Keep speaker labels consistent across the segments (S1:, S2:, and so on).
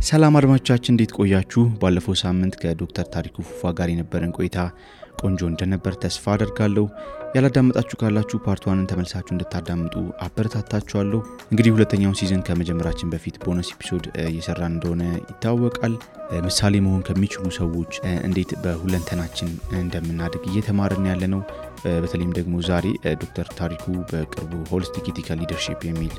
S1: ሰላም አድማጮቻችን እንዴት ቆያችሁ? ባለፈው ሳምንት ከዶክተር ታሪኩ ፉፋ ጋር የነበረን ቆይታ ቆንጆ እንደነበር ተስፋ አደርጋለሁ። ያላዳመጣችሁ ካላችሁ ፓርት 1ን ተመልሳችሁ እንድታዳምጡ አበረታታችኋለሁ። እንግዲህ ሁለተኛውን ሲዝን ከመጀመራችን በፊት ቦነስ ኤፒሶድ እየሰራን እንደሆነ ይታወቃል። ምሳሌ መሆን ከሚችሉ ሰዎች እንዴት በሁለንተናችን እንደምናድግ እየተማርን ያለነው። በተለይም ደግሞ ዛሬ ዶክተር ታሪኩ በቅርቡ ሆሊስቲክ ኢቲካል ሊደርሺፕ የሚል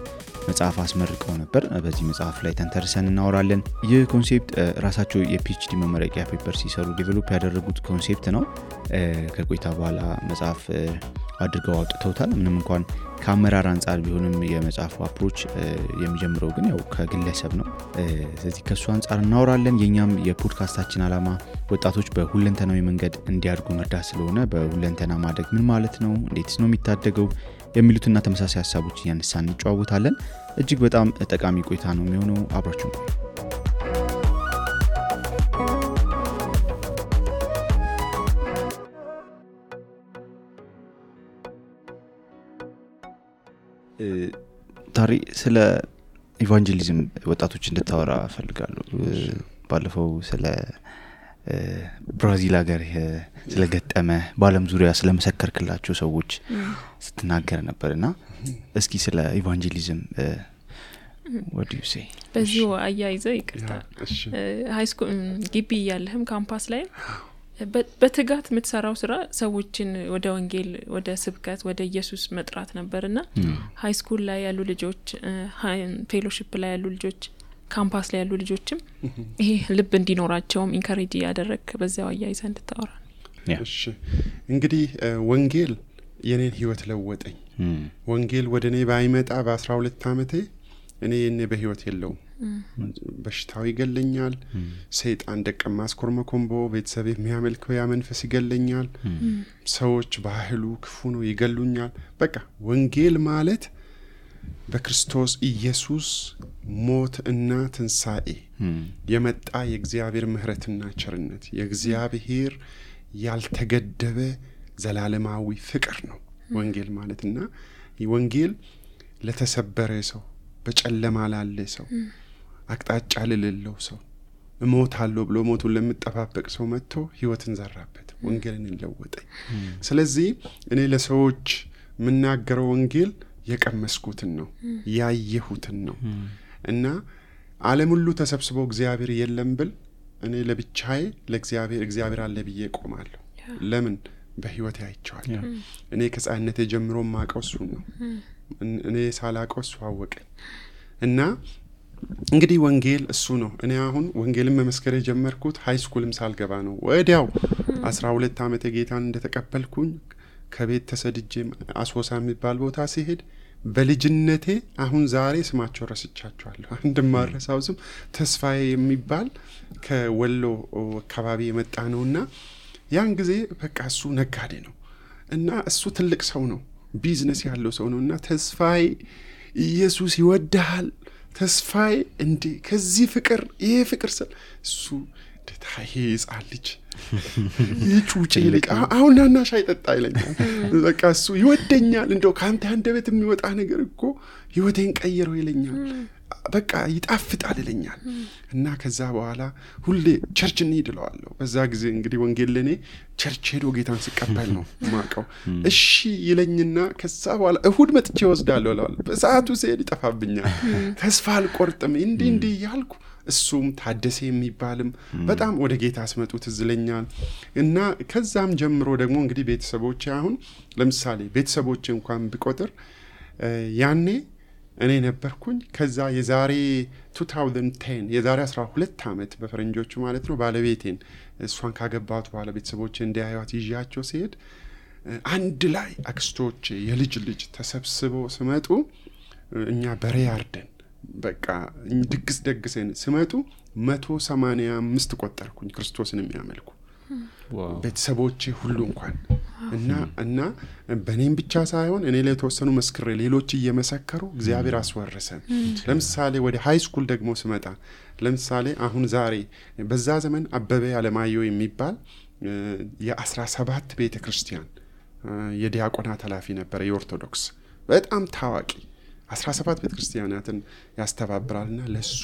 S1: መጽሐፍ አስመርቀው ነበር። በዚህ መጽሐፍ ላይ ተንተርሰን እናወራለን። ይህ ኮንሴፕት ራሳቸው የፒኤችዲ መመረቂያ ፔፐር ሲሰሩ ዴቨሎፕ ያደረጉት ኮንሴፕት ነው። ከቆይታ በኋላ መጽሐፍ አድርገው አውጥተውታል። ምንም እንኳን ከአመራር አንፃር ቢሆንም የመጽሐፉ አፕሮች የሚጀምረው ግን ያው ከግለሰብ ነው። ስለዚህ ከሱ አንፃር እናወራለን። የኛም የፖድካስታችን ዓላማ ወጣቶች በሁለንተናዊ መንገድ እንዲያድጉ መርዳት ስለሆነ በሁለንተና ማደግ ምን ማለት ነው፣ እንዴትስ ነው የሚታደገው የሚሉትና ተመሳሳይ ሐሳቦች እያነሳን እንጨዋወታለን። እጅግ በጣም ጠቃሚ ቆይታ ነው የሚሆነው። አብራችሁን ቆዩ። ታሪ ስለ ኢቫንጀሊዝም ወጣቶች እንድታወራ ፈልጋለሁ። ባለፈው ስለ ብራዚል ሀገር ስለገጠመ በዓለም ዙሪያ ስለመሰከርክላቸው ሰዎች ስትናገር ነበርና እስኪ ስለ ኢቫንጀሊዝም what do you say?
S2: በዚሁ አያይዘ ይቅርታ ሃይስኩል ግቢ ያለህም ካምፓስ ላይ በትጋት የምትሰራው ስራ ሰዎችን ወደ ወንጌል፣ ወደ ስብከት፣ ወደ ኢየሱስ መጥራት ነበርና ሃይስኩል ላይ ያሉ ልጆች፣ ፌሎሺፕ ላይ ያሉ ልጆች፣ ካምፓስ ላይ ያሉ ልጆችም ይሄ ልብ እንዲኖራቸውም ኢንካሬጅ ያደረክ በዛው አያይዘ እንድታወራ።
S3: እሺ እንግዲህ ወንጌል የኔን ህይወት ለወጠኝ። ወንጌል ወደኔ ባይመጣ በ12 አመቴ እኔ በህይወት የለውም። በሽታው ይገለኛል። ሰይጣን ደቀማ አስኮርመኮምቦ ቤተሰብ የሚያመልከው ያ መንፈስ ይገለኛል። ሰዎች ባህሉ ክፉ ነው ይገሉኛል። በቃ ወንጌል ማለት በክርስቶስ ኢየሱስ ሞት እና ትንሳኤ የመጣ የእግዚአብሔር ምህረትና ቸርነት፣ የእግዚአብሔር ያልተገደበ ዘላለማዊ ፍቅር ነው ወንጌል ማለትና ወንጌል ለተሰበረ ሰው፣ በጨለማ ላለ ሰው፣ አቅጣጫ ለሌለው ሰው፣ እሞታለሁ ብሎ ሞቱን ለምጠባበቅ ሰው መጥቶ ህይወትን ዘራበት፣ ወንጌልን ለወጠኝ። ስለዚህ እኔ ለሰዎች ምናገረው ወንጌል የቀመስኩትን ነው፣ ያየሁትን ነው። እና ዓለም ሁሉ ተሰብስቦ እግዚአብሔር የለም ብል እኔ ለብቻዬ እግዚአብሔር አለ ብዬ ቆማለሁ። ለምን? በህይወቴ አይቼዋለሁ። እኔ ከጻነቴ ጀምሮ ማቀው እሱ ነው። እኔ ሳላቀው እሱ አወቀኝ። እና እንግዲህ ወንጌል እሱ ነው። እኔ አሁን ወንጌልን መመስከር የጀመርኩት ሃይስኩልም ሳልገባ ነው። ወዲያው 12 አመት ጌታን እንደተቀበልኩኝ ከቤት ተሰድጄ አሶሳ የሚባል ቦታ ሲሄድ በልጅነቴ አሁን ዛሬ ስማቸው ረስቻቸዋለሁ። እንደማረሳው ስም ተስፋዬ የሚባል ከወሎ አካባቢ የመጣ ነውና ያን ጊዜ በቃ እሱ ነጋዴ ነው እና እሱ ትልቅ ሰው ነው፣ ቢዝነስ ያለው ሰው ነውና ተስፋዬ ኢየሱስ ይወድሃል፣ ተስፋዬ እንዴ ከዚህ ፍቅር ይሄ ፍቅር እሱ ደታዬ ይጻልጅ ይጩጭ ይልቅ አሁን ናና ሻይ ጠጣ ይለኛል። በቃ እሱ ይወደኛል፣ እንደው ካንተ አንደበት የሚወጣ ነገር እኮ ህይወቴን ቀየረው ይለኛል። በቃ ይጣፍጣል ይለኛል። እና ከዛ በኋላ ሁሌ ቸርች እንይድለዋለሁ። በዛ ጊዜ እንግዲህ ወንጌል ለኔ ቸርች ሄዶ ጌታን ሲቀበል ነው ማቀው። እሺ ይለኝና ከዛ በኋላ እሁድ መጥቼ ወስዳለሁ እላለሁ። በሰዓቱ ሲሄድ ይጠፋብኛል። ተስፋ አልቆርጥም እንዲ ያልኩ እሱም ታደሰ የሚባልም በጣም ወደ ጌታ አስመጡት ዝለኛል። እና ከዛም ጀምሮ ደግሞ እንግዲህ ቤተሰቦቼ አሁን ለምሳሌ ቤተሰቦቼ እንኳን ቢቆጥር ያኔ እኔ ነበርኩኝ። ከዛ የዛሬ 2010 የዛሬ 12 አመት በፈረንጆቹ ማለት ነው ባለቤቴን እሷን ካገባሁት በኋላ ቤተሰቦቼ እንዲያዩት ይዣቸው ሲሄድ አንድ ላይ አክስቶቼ የልጅ ልጅ ተሰብስበው ሲመጡ እኛ በሬ አርደን በቃ ድግስ ደግሰን ሲመጡ 185 ቆጠርኩኝ ክርስቶስን የሚያመልኩ ቤተሰቦቼ ሁሉ እንኳን እና በኔም ብቻ ሳይሆን እኔ ላይ ተወሰኑ መስክሬ ሌሎች እየመሰከሩ እግዚአብሔር አስወረሰን። ለምሳሌ ወደ ሃይ ስኩል ደግሞ ስመጣ ለምሳሌ አሁን ዛሬ በዛ ዘመን አበበ አለማየሁ የሚባል የ17 ቤተክርስቲያን የዲያቆናት ኃላፊ ነበር፣ የኦርቶዶክስ በጣም ታዋቂ 17 ቤተክርስቲያናትን ያስተባብራልና ለሱ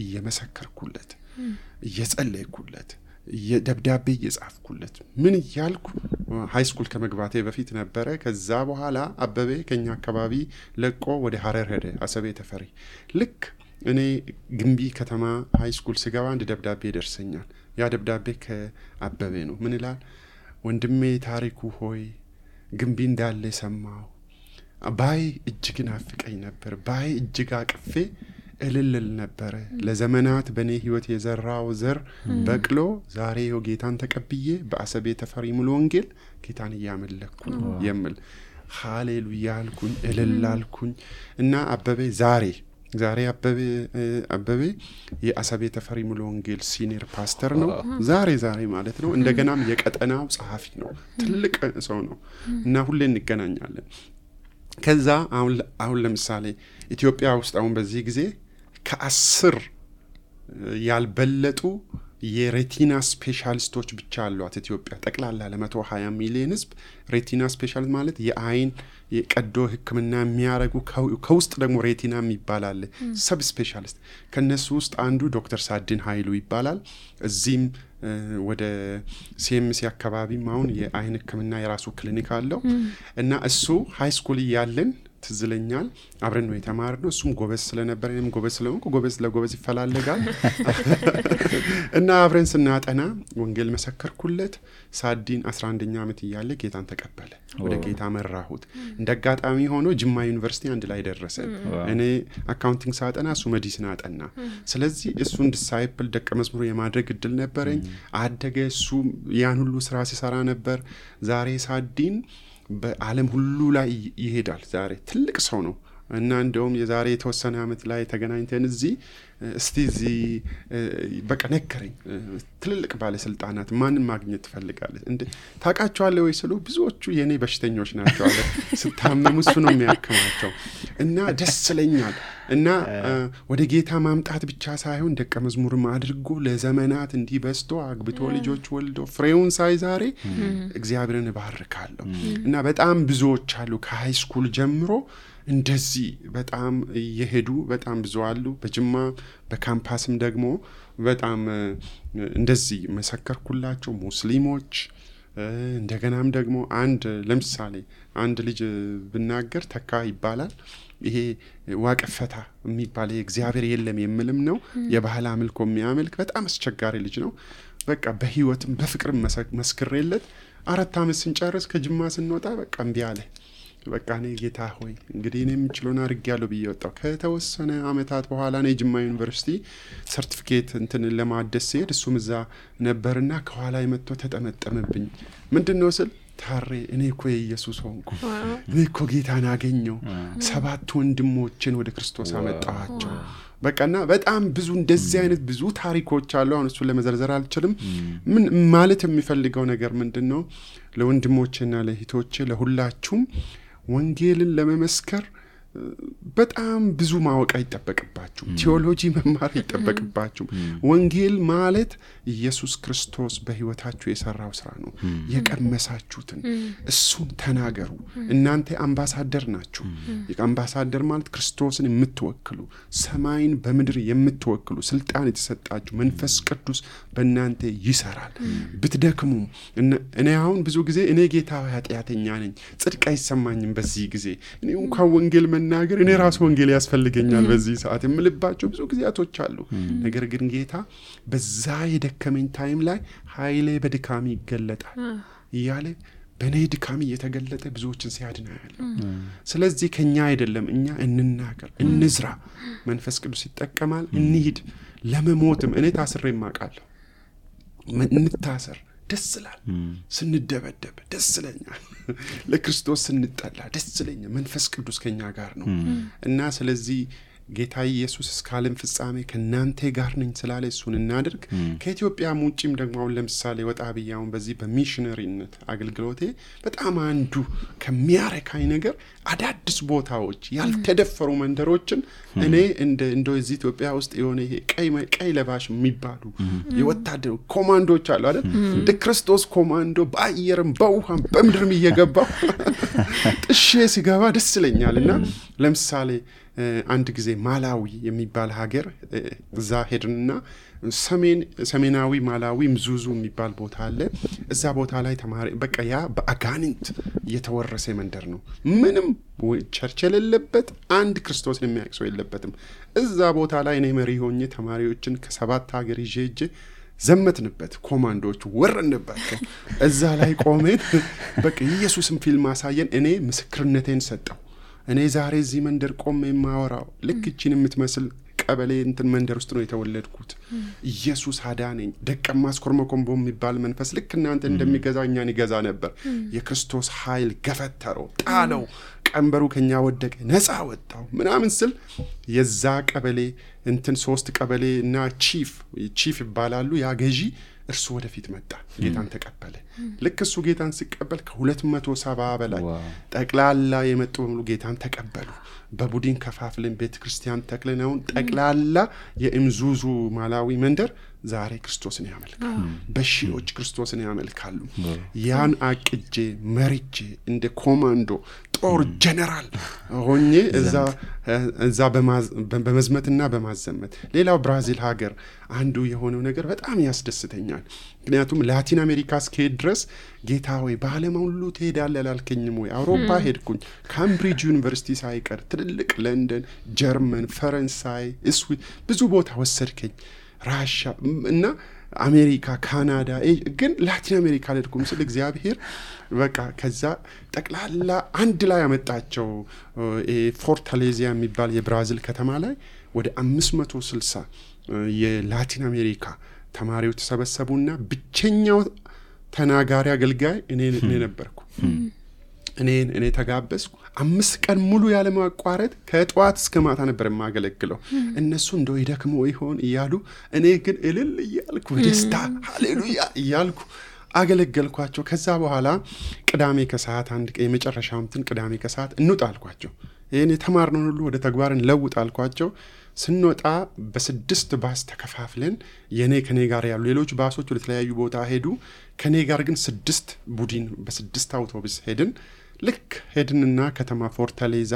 S3: እየመሰከርኩለት እየጸለይኩለት ደብዳቤ እየጻፍኩለት ምን ያልኩ ሃይ ስኩል ከመግባቴ በፊት ነበረ። ከዛ በኋላ አበበ ከኛ አካባቢ ለቆ ወደ ሐረር ሄደ፣ አሰቤ ተፈሪ። ልክ እኔ ግንቢ ከተማ ሃይ ስኩል ስገባ አንድ ደብዳቤ ደርሰኛል። ያ ደብዳቤ ከአበበ ነው። ምን ይላል? ወንድሜ ታሪኩ ሆይ ግንቢ እንዳለ ሰማው። ባይ እጅግ ናፍቀኝ ነበር። ባይ እጅግ አቅፌ እልልል ነበር። ለዘመናት በኔ ህይወት የዘራው ዘር በቅሎ ዛሬ ጌታን ተቀብዬ በአሰቤ ተፈሪ ሙሉ ወንጌል ጌታን እያመለኩ ነው የሚል ሃሌሉያ አልኩኝ፣ እልል አልኩኝ። እና አበበ ዛሬ አበበ የአሰቤ ተፈሪ ሙሉ ወንጌል ሲኒየር ፓስተር ነው። ዛሬ ማለት ነው። እንደገናም የቀጠናው ጸሐፊ ነው። ትልቅ ሰው ነው እና ሁሌ እንገናኛለን። ከዛ አሁን ለምሳሌ ኢትዮጵያ ውስጥ አሁን በዚህ ጊዜ ከ10 ያልበለጡ የሬቲና ስፔሻሊስቶች ብቻ አሏት ኢትዮጵያ። ጠቅላላ ለ120 ሚሊዮን ህዝብ ሬቲና ስፔሻሊስት ማለት የአይን የቀዶ ህክምና የሚያረጉ ከውስጥ ደግሞ ሬቲና የሚባላል ሰብ ስፔሻሊስት። ከነሱ ውስጥ አንዱ ዶክተር ሳድን ኃይሉ ይባላል። እዚህም ወደ ሲኤምሲ አካባቢም አሁን የአይን ህክምና የራሱ ክሊኒክ አለው እና እሱ ሃይ ስኩል ያለን ትዝለኛል አብረን ነው የተማርነው። እሱም ጎበዝ ስለነበር እኔም ጎበዝ ስለሆንኩ ጎበዝ ለጎበዝ ይፈላልጋል እና አብረን ስናጠና ወንጌል መሰከርኩለት። ሳዲን 11ኛ ዓመት እያለ ጌታን ተቀበለ። ወደ ጌታ መራሁት። እንደጋጣሚ ሆኖ ጅማ ዩኒቨርሲቲ አንድ ላይ ደረሰን። እኔ አካውንቲንግ ሳጠና እሱ ሜዲሲን አጠና። ስለዚህ እሱን ዲሳይፕል ደቀ መዝሙር የማድረግ እድል ነበረኝ። አደገ። እሱ ያን ሁሉ ስራ ሲሰራ ነበር። ዛሬ ሳዲን በዓለም ሁሉ ላይ ይሄዳል። ዛሬ ትልቅ ሰው ነው እና እንደውም የዛሬ የተወሰነ ዓመት ላይ ተገናኝተን እዚህ በቃ ነገረኝ። ትልልቅ ባለስልጣናት ማንን ማግኘት ትፈልጋለህ እንዴ ታውቃቸዋለህ ወይ ስሉ ብዙዎቹ የኔ በሽተኞች ናቸው አለ። ስታመሙ እሱ ነው የሚያክማቸው እና ደስ ይለኛል። እና ወደ ጌታ ማምጣት ብቻ ሳይሆን ደቀ መዝሙርም አድርጎ ለዘመናት እንዲህ በስቶ አግብቶ ልጆች ወልዶ ፍሬውን ሳይ ዛሬ እግዚአብሔርን እባርካለሁ። እና በጣም ብዙዎች አሉ ከሃይ ስኩል ጀምሮ እንደዚህ በጣም የሄዱ በጣም ብዙ አሉ። በጅማ በካምፓስም ደግሞ በጣም እንደዚህ መሰከርኩላቸው ሙስሊሞች። እንደገናም ደግሞ ለምሳሌ አንድ ልጅ ብናገር ተካ ይባላል። ይሄ ዋቀፈታ የሚባል እግዚአብሔር የለም የሚልም ነው። የባህል አምልኮ የሚያመልክ በጣም አስቸጋሪ ልጅ ነው። በቃ በህይወትም በፍቅርም መስክሬለት 4 ዓመት ስንጨርስ ከጅማ ስንወጣ በቃ እምቢ አለ። በቃ እኔ ጌታ ሆይ እንግዲህ እኔ የምችለውን አድርጌያለሁ ብዬ ወጣሁ። ከተወሰነ ዓመታት በኋላ እኔ ጅማ ዩኒቨርሲቲ ሰርቲፊኬት ለማደስ ሲሄድ እሱም እዛ ነበርና ከኋላ መጥቶ ተጠመጠመብኝ። ምንድነው ስል ታሬ እኔ እኮ የኢየሱስ ሆንኩ። እኔ እኮ ጌታን አገኘው። 7 ወንድሞችን ወደ ክርስቶስ አመጣኋቸው። በቃና በጣም ብዙ እንደዚህ አይነት ብዙ ታሪኮች አሉ። አሁን እሱን ለመዘርዘር አልችልም። ምን ማለት የሚፈልገው ነገር ምንድነው? ለወንድሞቼና ለእህቶቼ ለሁላችሁም ወንጌልን ለመመስከር በጣም ብዙ ማወቅ አይጠበቅባችሁም። ቲዮሎጂ መማር አይጠበቅባችሁም። ወንጌል ማለት ኢየሱስ ክርስቶስ በህይወታችሁ የሰራው ስራ ነው። የቀመሳችሁትን እሱን ተናገሩ። እናንተ አምባሳደር ናችሁ። የአምባሳደር ማለት ክርስቶስን የምትወክሉ ሰማይን በምድር የምትወክሉ ስልጣን የተሰጣችሁ መንፈስ ቅዱስ በእናንተ ይሰራል። ብትደክሙ እኔ አሁን ብዙ ጊዜ እኔ ጌታ ኃጢአተኛ ነኝ ጽድቅ አይሰማኝም በዚህ ጊዜ እኔ እንኳን ወንጌል መናገር እኔ ራስ ወንጌል ያስፈልገኛል በዚህ ሰዓት የምልባቸው ብዙ ጊዜያቶች አሉ። ነገር ግን ጌታ በዛ የደከመኝ ታይም ላይ ኃይሌ በድካም ይገለጣል እያለ በኔ ድካም እየተገለጠ ብዙዎችን ሲያድናል። ስለዚህ ከኛ አይደለም እኛ እንናገር እንዝራ። መንፈስ ቅዱስ ይጠቀማል። እንሂድ። ለመሞትም እኔ ታስሬ ማቃለሁ። እንታሰር ደስ ይላል። ስንደበደብ ደስ ይለኛል። ለክርስቶስ ስንጠላ ደስ ይለኛል። መንፈስ ቅዱስ ከኛ ጋር ነው እና ስለዚህ ጌታ ኢየሱስ እስከ ዓለም ፍጻሜ ከናንተ ጋር ነኝ ስላለ እሱን እናድርግ። ከኢትዮጵያ ውጪም ደግሞ አሁን ለምሳሌ ወጣ ብያውን በዚህ በሚሽነሪነት አገልግሎቴ በጣም አንዱ ከሚያረካኝ ነገር አዳዲስ ቦታዎች ያልተደፈሩ መንደሮችን እኔ እንደ እዚህ ኢትዮጵያ ውስጥ የሆነ ይሄ ቀይ ለባሽ የሚባሉ የወታደር ኮማንዶች አሉ አይደል? እንደ ክርስቶስ ኮማንዶ በአየርም በውሃም በምድርም እየገባው ጥሼ ሲገባ ደስ ይለኛልና ለምሳሌ አንድ ጊዜ ማላዊ የሚባል ሀገር እዛ ሄድንና ሰሜናዊ ማላዊ ምዙዙ የሚባል ቦታ አለ። እዛ ቦታ ላይ ተማሪ በቃ ያ በአጋንንት የተወረሰ መንደር ነው። ምንም ቸርች የሌለበት አንድ ክርስቶስን የሚያውቅ ሰው የለበትም። እዛ ቦታ ላይ እኔ መሪ ሆኜ ተማሪዎችን ከ7 ሀገር ይዤ ዘመትንበት። ኮማንዶች ወረንባቸው። እዛ ላይ ቆመን በቃ ኢየሱስን ፊልም አሳየን። እኔ ምስክርነቴን ሰጠው። እኔ ዛሬ እዚህ መንደር ቆሜ የማወራው ልክ እቺን የምትመስል ቀበሌ እንትን መንደር ውስጥ ነው የተወለድኩት። ኢየሱስ አዳነኝ። ደቀ ማስኮርመኮምቦ የሚባል መንፈስ ልክ እናንተ እንደሚገዛው እኛን ይገዛ ነበር። የክርስቶስ ኃይል ገፈተረው፣ ጣለው፣ ቀንበሩ ከኛ ወደቀ፣ ነፃ ወጣው ምናምን ስል የዛ ቀበሌ እንትን 3 ቀበሌ እና ቺፍ ይባላሉ ያ ገዢ እርሱ ወደፊት መጣ። ጌታን ተቀበለ። ልክ እሱ ጌታን ሲቀበል ከ270 በላይ ጠቅላላ የመጡ ሁሉ ጌታን ተቀበሉ። በቡድን ከፋፍለን ቤተክርስቲያን ተክለናው ጠቅላላ የምዙዙ ማላዊ መንደር ዛሬ ክርስቶስን ያመልካሉ። በሺዎች ክርስቶስን ያመልካሉ። ያን አቅጄ መሪቼ እንደ ኮማንዶ ጦር ጀነራል ሆኜ እዛ በመዝመትና በማዘመት ሌላው ብራዚል ሀገር አንዱ የሆነው ነገር በጣም ያስደስተኛል። ምክንያቱም ላቲን አሜሪካ እስከሄድ ድረስ ጌታ ሆይ በዓለም ሁሉ ትሄዳለህ አላልከኝም ወይ? አውሮፓ ሄድኩኝ። ካምብሪጅ ዩኒቨርሲቲ ሳይቀር ትልልቅ ለንደን፣ ጀርመን፣ ፈረንሳይ፣ ስዊት ብዙ ቦታ ወሰድከኝ። ራሻ እና አሜሪካ፣ ካናዳ ግን ላቲን አሜሪካ ልድኩም ስለ እግዚአብሔር በቃ ከዛ ጠቅላላ አንድ ላይ ያመጣቸው ፎርታሌዚያ የሚባል የብራዚል ከተማ ላይ ወደ 560 የላቲን አሜሪካ ተማሪዎች ተሰበሰቡና ብቸኛው ተናጋሪ አገልጋይ እኔ ነበርኩ። እኔ ተጋበዝኩ። 5 ቀን ሙሉ ያለ ማቋረጥ ከጧት እስከ ማታ ነበር የማገለግለው። እነሱ እንደው ይደክሙ ይሆን እያሉ እኔ ግን እልል እያልኩ ደስታ ሃሌሉያ እያልኩ አገለገልኳቸው። ከዛ በኋላ ቅዳሜ ከሰዓት አንድ ቀን የመጨረሻው ቅዳሜ ከሰዓት እንውጣልኳቸው። ይሄን የተማርነው ሁሉ ወደ ተግባር እንለውጣልኳቸው። ስንወጣ በ6 ባስ ተከፋፍለን ከኔ ጋር ያሉ ሌሎች ባሶች ወደ ተለያዩ ቦታ ሄዱ። ከኔ ጋር ግን 6 ቡድን በ6 አውቶቡስ ሄድን። ልክ ሄድንና ከተማ ፎርታሌዛ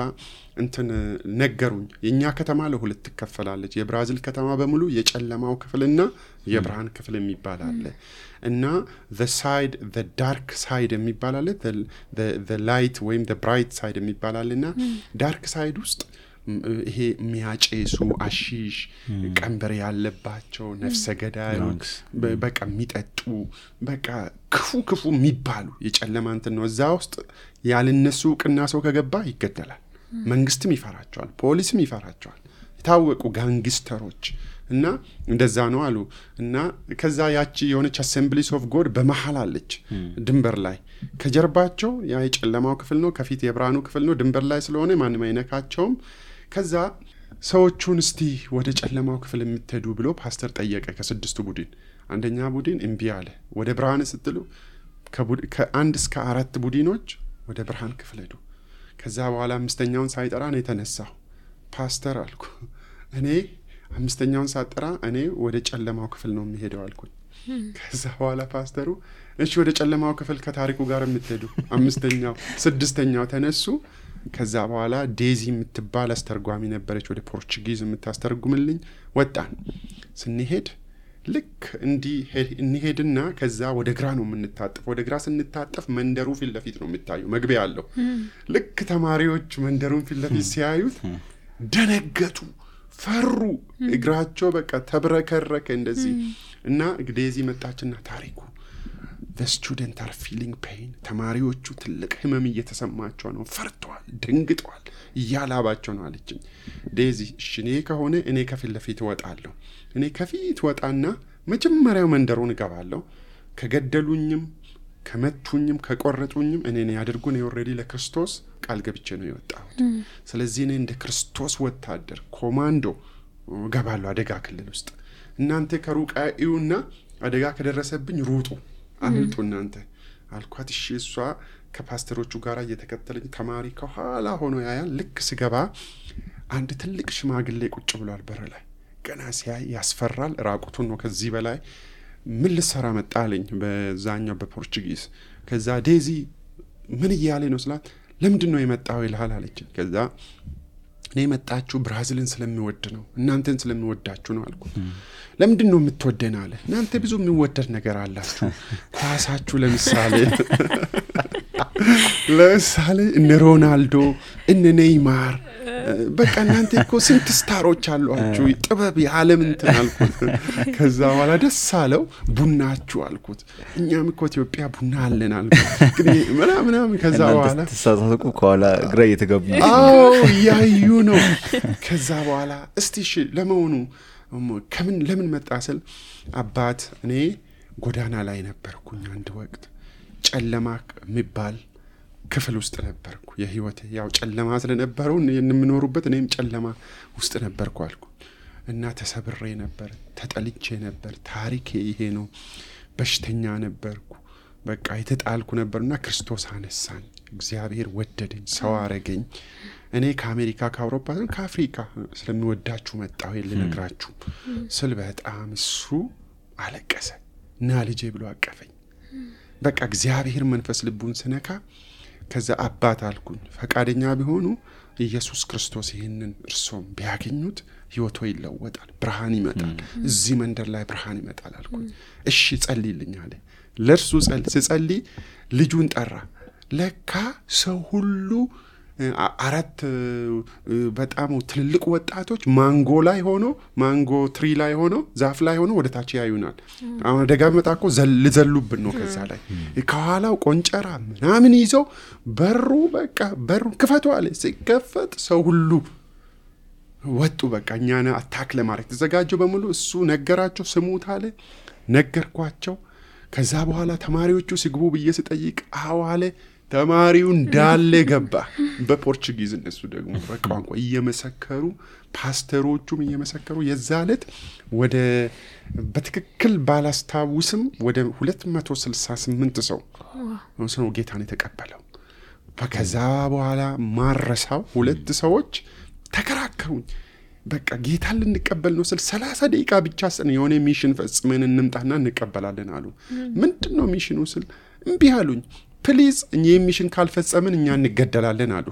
S3: ነገሩኝ። የኛ ከተማ ለ2 ትከፈላለች። የብራዚል ከተማ በሙሉ የጨለማው ክፍልና የብርሃን ክፍል የሚባል አለ እና the dark side የሚባል አለ፣ the light ወይም the bright side የሚባል አለና ዳርክ ሳይድ ውስጥ ይሄ የሚያጨሱ አሺሽ ቀንበር ያለባቸው ነፍሰ ገዳዮች በቃ የሚጠጡ በቃ ክፉ የሚባሉ የጨለማ እንትን ነው። እዛ ውስጥ ያልነሱ ቅና ሰው ከገባ ይገደላል። መንግስትም ይፈራቸዋል፣ ፖሊስም ይፈራቸዋል፣ የታወቁ ጋንግስተሮች እና እንደዛ ነው አሉ። እና ከዛ ያቺ የሆነች አሴምብሊስ ኦፍ ጎድ በመሃል አለች ድንበር ላይ። ከጀርባቸው ያ የጨለማው ክፍል ነው፣ ከፊት የብርሃኑ ክፍል ነው። ድንበር ላይ ስለሆነ ማንም አይነካቸውም። ከዛ ሰዎቹን እስቲ ወደ ጨለማው ክፍል የምትሄዱ ብሎ ፓስተር ጠየቀ። ከ6 ቡድን አንደኛ ቡድን እምቢ አለ። ወደ ብርሃን ስትሉ ከ1 እስከ 4 ቡድኖች ወደ ብርሃን ክፍል ሄዱ። ከዛ በኋላ 5ኛውን ሳይጠራ ነው የተነሳው። ፓስተር አልኩ እኔ 5ኛውን ሳጠራ እኔ ወደ ጨለማው ክፍል ነው የሚሄደው አልኩኝ። ከዛ በኋላ ፓስተሩ እሺ ወደ ጨለማው ክፍል ከታሪኩ ጋር የምትሄዱ 5ኛው 6ኛው ተነሱ። ከዛ በኋላ ዴዚ የምትባል አስተርጓሚ ነበረች፣ ወደ ፖርቹጊዝ የምታስተርጉምልኝ። ወጣን። ስንሄድ ልክ እንሄድና ከዛ ወደ ግራ ነው የምንታጠፍ። ወደ ግራ ስንታጠፍ መንደሩ ፊት ለፊት ነው የሚታየው፣ መግቢያ አለው። ልክ ተማሪዎች መንደሩን ፊት ለፊት ሲያዩት ደነገጡ፣ ፈሩ። እግራቸው በቃ ተብረከረከ እንደዚህ። እና ዴዚ መጣችና ታሪኩ the students are feeling pain ተማሪዎቹ ትልቅ ህመም እየተሰማቸው ነው፣ ፈርተዋል፣ ደንግጠዋል፣ እያላባቸው ነው አለችኝ። ዴዚ እኔ ከሆነ እኔ ከፊት ለፊት ወጣለሁ። እኔ ከፊት ወጣና መጀመሪያው መንደሩን እገባለሁ። ከገደሉኝም ከመቱኝም ከቆረጡኝም እኔን ያድርጉን ኦሬዲ ለክርስቶስ ቃል ገብቼ ነው የወጣሁት። ስለዚህ እኔ እንደ ክርስቶስ ወታደር ኮማንዶ ገባለሁ አደጋ ክልል ውስጥ። እናንተ ከሩቅ አዩና አደጋ ከደረሰብኝ ሩጡ አምልጡ እናንተ አልኳት። እሺ እሷ ከፓስተሮቹ ጋር እየተከተለኝ ተማሪ ከኋላ ሆኖ ያያል። ልክ ስገባ አንድ ትልቅ ሽማግሌ ቁጭ ብሏል በር ላይ። ገና ሲያይ ያስፈራል። ራቁቱን ነው። ከዚህ በላይ ምን ልሰራ መጣ አለኝ በዛኛው በፖርቹጊዝ። ከዛ ዴዚ ምን እያለ ነው ስላት ለምንድን ነው የመጣው ይልሃል አለች። ከዛ እኔ መጣችሁ ብራዚልን ስለሚወድ ነው እናንተን ስለሚወዳችሁ ነው አልኩት። ለምንድን ነው የምትወደን አለ። እናንተ ብዙ የሚወደድ ነገር አላችሁ። ኳሳችሁ ለምሳሌ እነ ሮናልዶ እነ ኔይማር በቃ እናንተ እኮ ስንት ስታሮች አሏችሁ ጥበብ የዓለም እንትን አልኩት። ከዛ በኋላ ደስ አለው። ቡናችሁ አልኩት። እኛም እኮ ኢትዮጵያ ቡና አለን አልኩት። ግን ምናምን ከዛ በኋላ
S1: ተሳሳተኩ ከኋላ ግራ እየተገቡ
S3: ያዩ ነው። ከዛ በኋላ እስቲ እሺ ለመሆኑ ለምን መጣ ስል አባት እኔ ጎዳና ላይ ነበርኩኝ አንድ ወቅት ጨለማ የሚባል ክፍል ውስጥ ነበርኩ። የህይወቴ ያው ጨለማ ስለነበረው የምንኖርበት እኔም ጨለማ ውስጥ ነበርኩ አልኩ እና ተሰብሬ ነበር፣ ተጠልቼ ነበር። ታሪኬ ይሄ ነው። በሽተኛ ነበርኩ። በቃ የተጣልኩ ነበርና ክርስቶስ አነሳኝ። እግዚአብሔር ወደደኝ፣ ሰው አረገኝ። እኔ ከአሜሪካ ከአውሮፓ ከአፍሪካ ስለሚወዳችሁ መጣሁ ልነግራችሁ ስል በጣም እሱ አለቀሰ እና ልጄ ብሎ አቀፈኝ። በቃ እግዚአብሔር መንፈስ ልቡን ስነካ ከዛ አባት አልኩኝ ፈቃደኛ ቢሆኑ ኢየሱስ ክርስቶስ ይሄንን እርሶም ቢያገኙት ህይወቶ ይለወጣል፣ ብርሃን ይመጣል፣ እዚህ መንደር ላይ ብርሃን ይመጣል አልኩኝ። እሺ ጸልይልኝ አለ። ለርሱ ጸልይ ልጁን ጠራ። ለካ ሰው ሁሉ አራት በጣም ትልልቅ ወጣቶች ማንጎ ላይ ሆኖ ማንጎ ትሪ ላይ ሆኖ ዛፍ ላይ ሆኖ ወደ ታች ያዩናል። አሁን ደጋ መጣኮ ዘልዘሉብን ነው። ከዛ ላይ ከኋላው ቆንጨራ ምናምን ይዘው በሩ ክፈቱ አለ። ሲከፈት ሰው ሁሉ ወጡ። በቃ እኛና አታክ ለማድረግ ተዘጋጁ በሙሉ። እሱ ነገራቸው፣ ስሙት አለ። ነገርኳቸው። ከዛ በኋላ ተማሪዎቹ ሲግቡ ብዬ ስጠይቅ አዋለ ተማሪው እንዳለ ገባ። በፖርቹጊዝ እነሱ ደግሞ በቋንቋ እየመሰከሩ ፓስተሮቹም እየመሰከሩ የዛለት ወደ በትክክል ባላስታውስም ወደ 268 ሰው ጌታን የተቀበለው። ከዛ በኋላ ማረሳው 2 ሰዎች ተከራከሩኝ። በቃ ጌታን ልንቀበል ነው ስል 30 ደቂቃ ብቻ የሆነ ሚሽን ፈጽመን እንምጣና እንቀበላለን አሉ። ምንድነው ሚሽኑ ስል እምቢ አሉኝ። ፕሊዝ እኛ ሚሽን ካልፈጸምን እኛ እንገደላለን አሉ።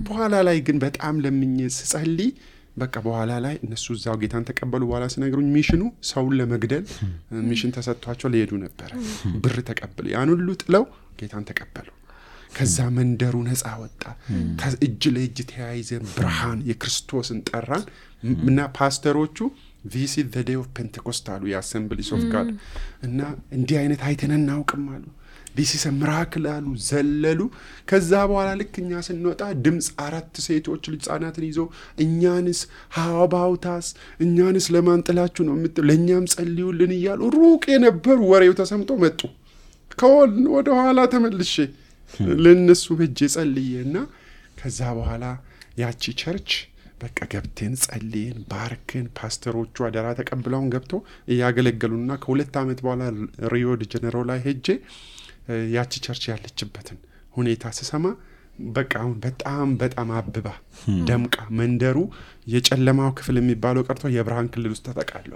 S3: በኋላ ላይ ግን በጣም ለምኜ ስጸልይ በቃ በኋላ ላይ እነሱ እዛው ጌታን ተቀበሉ። በኋላ ሲነግሩኝ ሚሽኑ ሰውን ለመግደል ሚሽን ተሰጥቷቸው ሊሄዱ ነበር። ብር ተቀበሉ። ያን ሁሉ ጥለው ጌታን ተቀበሉ። ከዛ መንደሩ ነፃ ወጣ። እጅ ለእጅ ተያይዘን ብርሃን የክርስቶስን ጠራን እና ፓስተሮቹ this is the day of Pentecost አሉ የአሰምብሊስ ኦፍ ጋድ እና እንዲህ አይነት አይተን እናውቅም አሉ። this is a miracle አሉ። ዘለሉ። ከዛ በኋላ ልክኛ ስንወጣ ድምጽ 4 ሴቶች ህፃናትን ይዘው እኛንስ how about us እኛንስ ለማንጥላችሁ ነው ለኛም ጸልዩልን እያሉ ሩቅ የነበሩ ወሬው ተሰምቶ መጡ። ወደ ኋላ ተመልሼ ለነሱ በእጄ ጸልዬና ከዛ በኋላ ያቺ ቸርች በቃ ገብተን ጸልየን ባርክን። ፓስተሮቹ አደራ ተቀብለውን ገብቶ ያገለገሉና ከ2 አመት በኋላ ሪዮ ዲ ጄኔሮ ላይ ሄጄ ያቺ ቸርች ያለችበትን ሁኔታ ስሰማ በቃ አሁን በጣም አብባ ደምቃ መንደሩ የጨለማው ክፍል የሚባለው ቀርቶ የብርሃን ክልል ውስጥ ተጠቃሏል።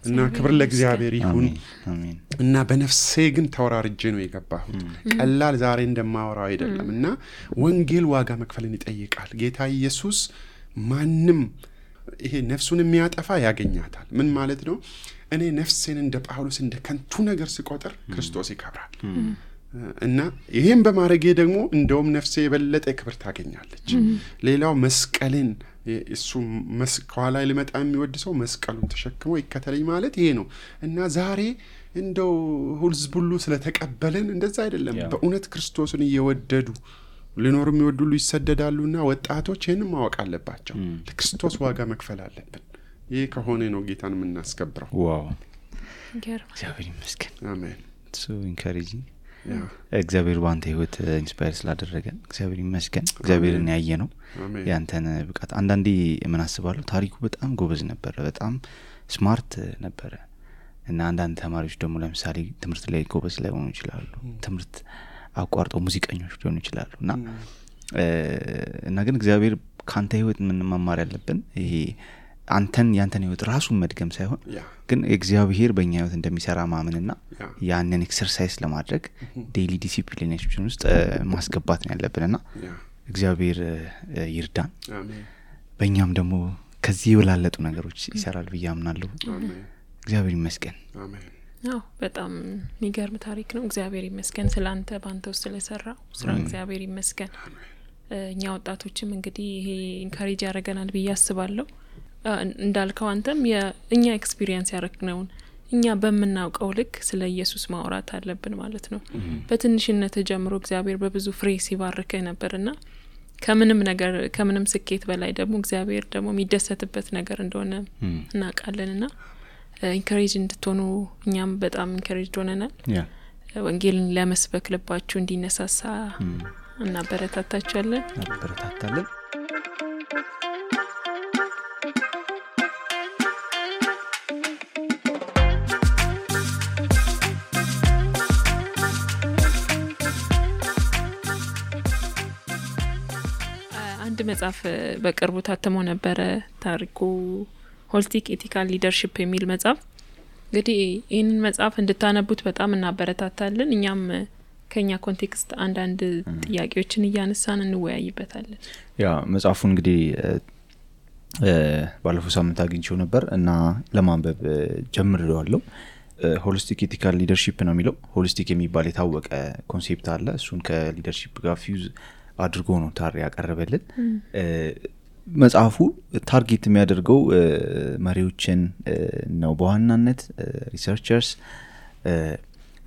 S3: እና ክብር ለእግዚአብሔር ይሁን። እና በነፍሴ ግን ተወራርጄ ነው የገባሁት። ቀላል ዛሬ እንደማወራው አይደለም። እና ወንጌል ዋጋ መክፈልን ይጠይቃል። ጌታ ኢየሱስ ማንም ይሄ ነፍሱን የሚያጠፋ ያገኛታል። ምን ማለት ነው? እኔ ነፍሴን እንደ ጳውሎስ እንደ ከንቱ ነገር ስቆጥር ክርስቶስ ይከብራል። እና ይሄን በማድረጌ ደግሞ እንደውም ነፍሴ የበለጠ ክብር ታገኛለች። ሌላው መስቀልን እሱ መስቀል ላይ ሊመጣ የሚወድ ሰው መስቀሉን ተሸክሞ ይከተለኝ ማለት ይሄ ነው። እና ዛሬ እንደው ህዝብ ሁሉ ስለተቀበለን እንደዛ አይደለም። በእውነት ክርስቶስን እየወደዱ ሊኖሩ የሚወዱ ሁሉ ይሰደዳሉና ወጣቶች ይሄንን ማወቅ አለባቸው። ለክርስቶስ ዋጋ መክፈል አለብን። ይሄ ከሆነ ነው ጌታን የምናስከብረው።
S1: ዋው እግዚአብሔር ይመስገን።
S3: አሜን።
S1: so encouraging እግዚአብሔር ባንተ ህይወት ኢንስፓየር ስላደረገን እግዚአብሔር ይመስገን። እግዚአብሔርን ያየ ነው ያንተን ብቃት። አንዳንዴ ምን አስባለሁ ታሪኩ በጣም ጎበዝ ነበር፣ በጣም ስማርት ነበር እና አንዳንድ ተማሪዎች ደግሞ ለምሳሌ ትምህርት ላይ ጎበዝ ላይ ሆኑ ይችላሉ፣ ትምህርት አቋርጠው ሙዚቀኞች ሊሆኑ ይችላሉ እና ግን እግዚአብሔር ካንተ ህይወት ምን መማር ያለብን ይሄ ያንተን ህይወት ራሱን መድገም ሳይሆን ግን እግዚአብሔር በእኛ ህይወት እንደሚሰራ ማመንና ያንን ኤክሰርሳይዝ ለማድረግ ዴይሊ ዲሲፕሊኔሽን ውስጥ ማስገባት ነው ያለብንና እግዚአብሔር ይርዳን። በእኛም ደግሞ ከዚህ የወላለጡ ነገሮች ይሰራል ብዬ አምናለሁ። እግዚአብሔር ይመስገን።
S2: አዎ በጣም የሚገርም ታሪክ ነው። እግዚአብሔር ይመስገን ስላንተ ባንተ ውስጥ ስለሰራው ስራ እግዚአብሔር ይመስገን። እኛ ወጣቶችም እንግዲህ ይሄ ኢንካሬጅ ያደርገናል ብዬ አስባለሁ። እንዳልከው አንተም የእኛ ኤክስፒሪየንስ ያረክነውን እኛ በመናውቀው ልክ ስለ ኢየሱስ ማውራት አለብን ማለት ነው። በትንሽነት ጀምሮ እግዚአብሔር በብዙ ፍሬ ሲባርከህ ነበርና ከምንም ስኬት በላይ ደግሞ እግዚአብሔር ደግሞ የሚደሰትበት ነገር እንደሆነ እናውቃለንና ኢንካሬጅ እንድትሆኑ እኛም በጣም ኢንካሬጅ ሆነናል። ወንጌልን ለመስበክ ልባችሁ እንዲነሳሳ እናበረታታችኋለን። አንድ መጽሐፍ በቅርቡ ታትሞ ነበረ ታሪኩ ሆሊስቲክ ኤቲካል ሊደርሺፕ የሚል መጽሐፍ። እንግዲህ ይህንን መጽሐፍ እንድታነቡት በጣም እናበረታታለን። እኛም ከኛ ኮንቴክስት አንዳንድ ጥያቄዎችን እያነሳን እንወያይበታለን።
S1: ያ መጽሐፉ እንግዲህ ባለፈው ሳምንት አግኝቼው ነበር እና ለማንበብ ጀምሬዋለሁ። ሆሊስቲክ ኤቲካል ሊደርሺፕ ነው የሚለው። ሆሊስቲክ የሚባል የታወቀ ኮንሴፕት አለ። እሱን ከሊደርሺፕ ጋር ፊውዝ አድርጎ ነው ታሪ ያቀረበልን። መጽሐፉ ታርጌት የሚያደርገው መሪዎችን ነው በዋናነት ሪሰርቸርስ።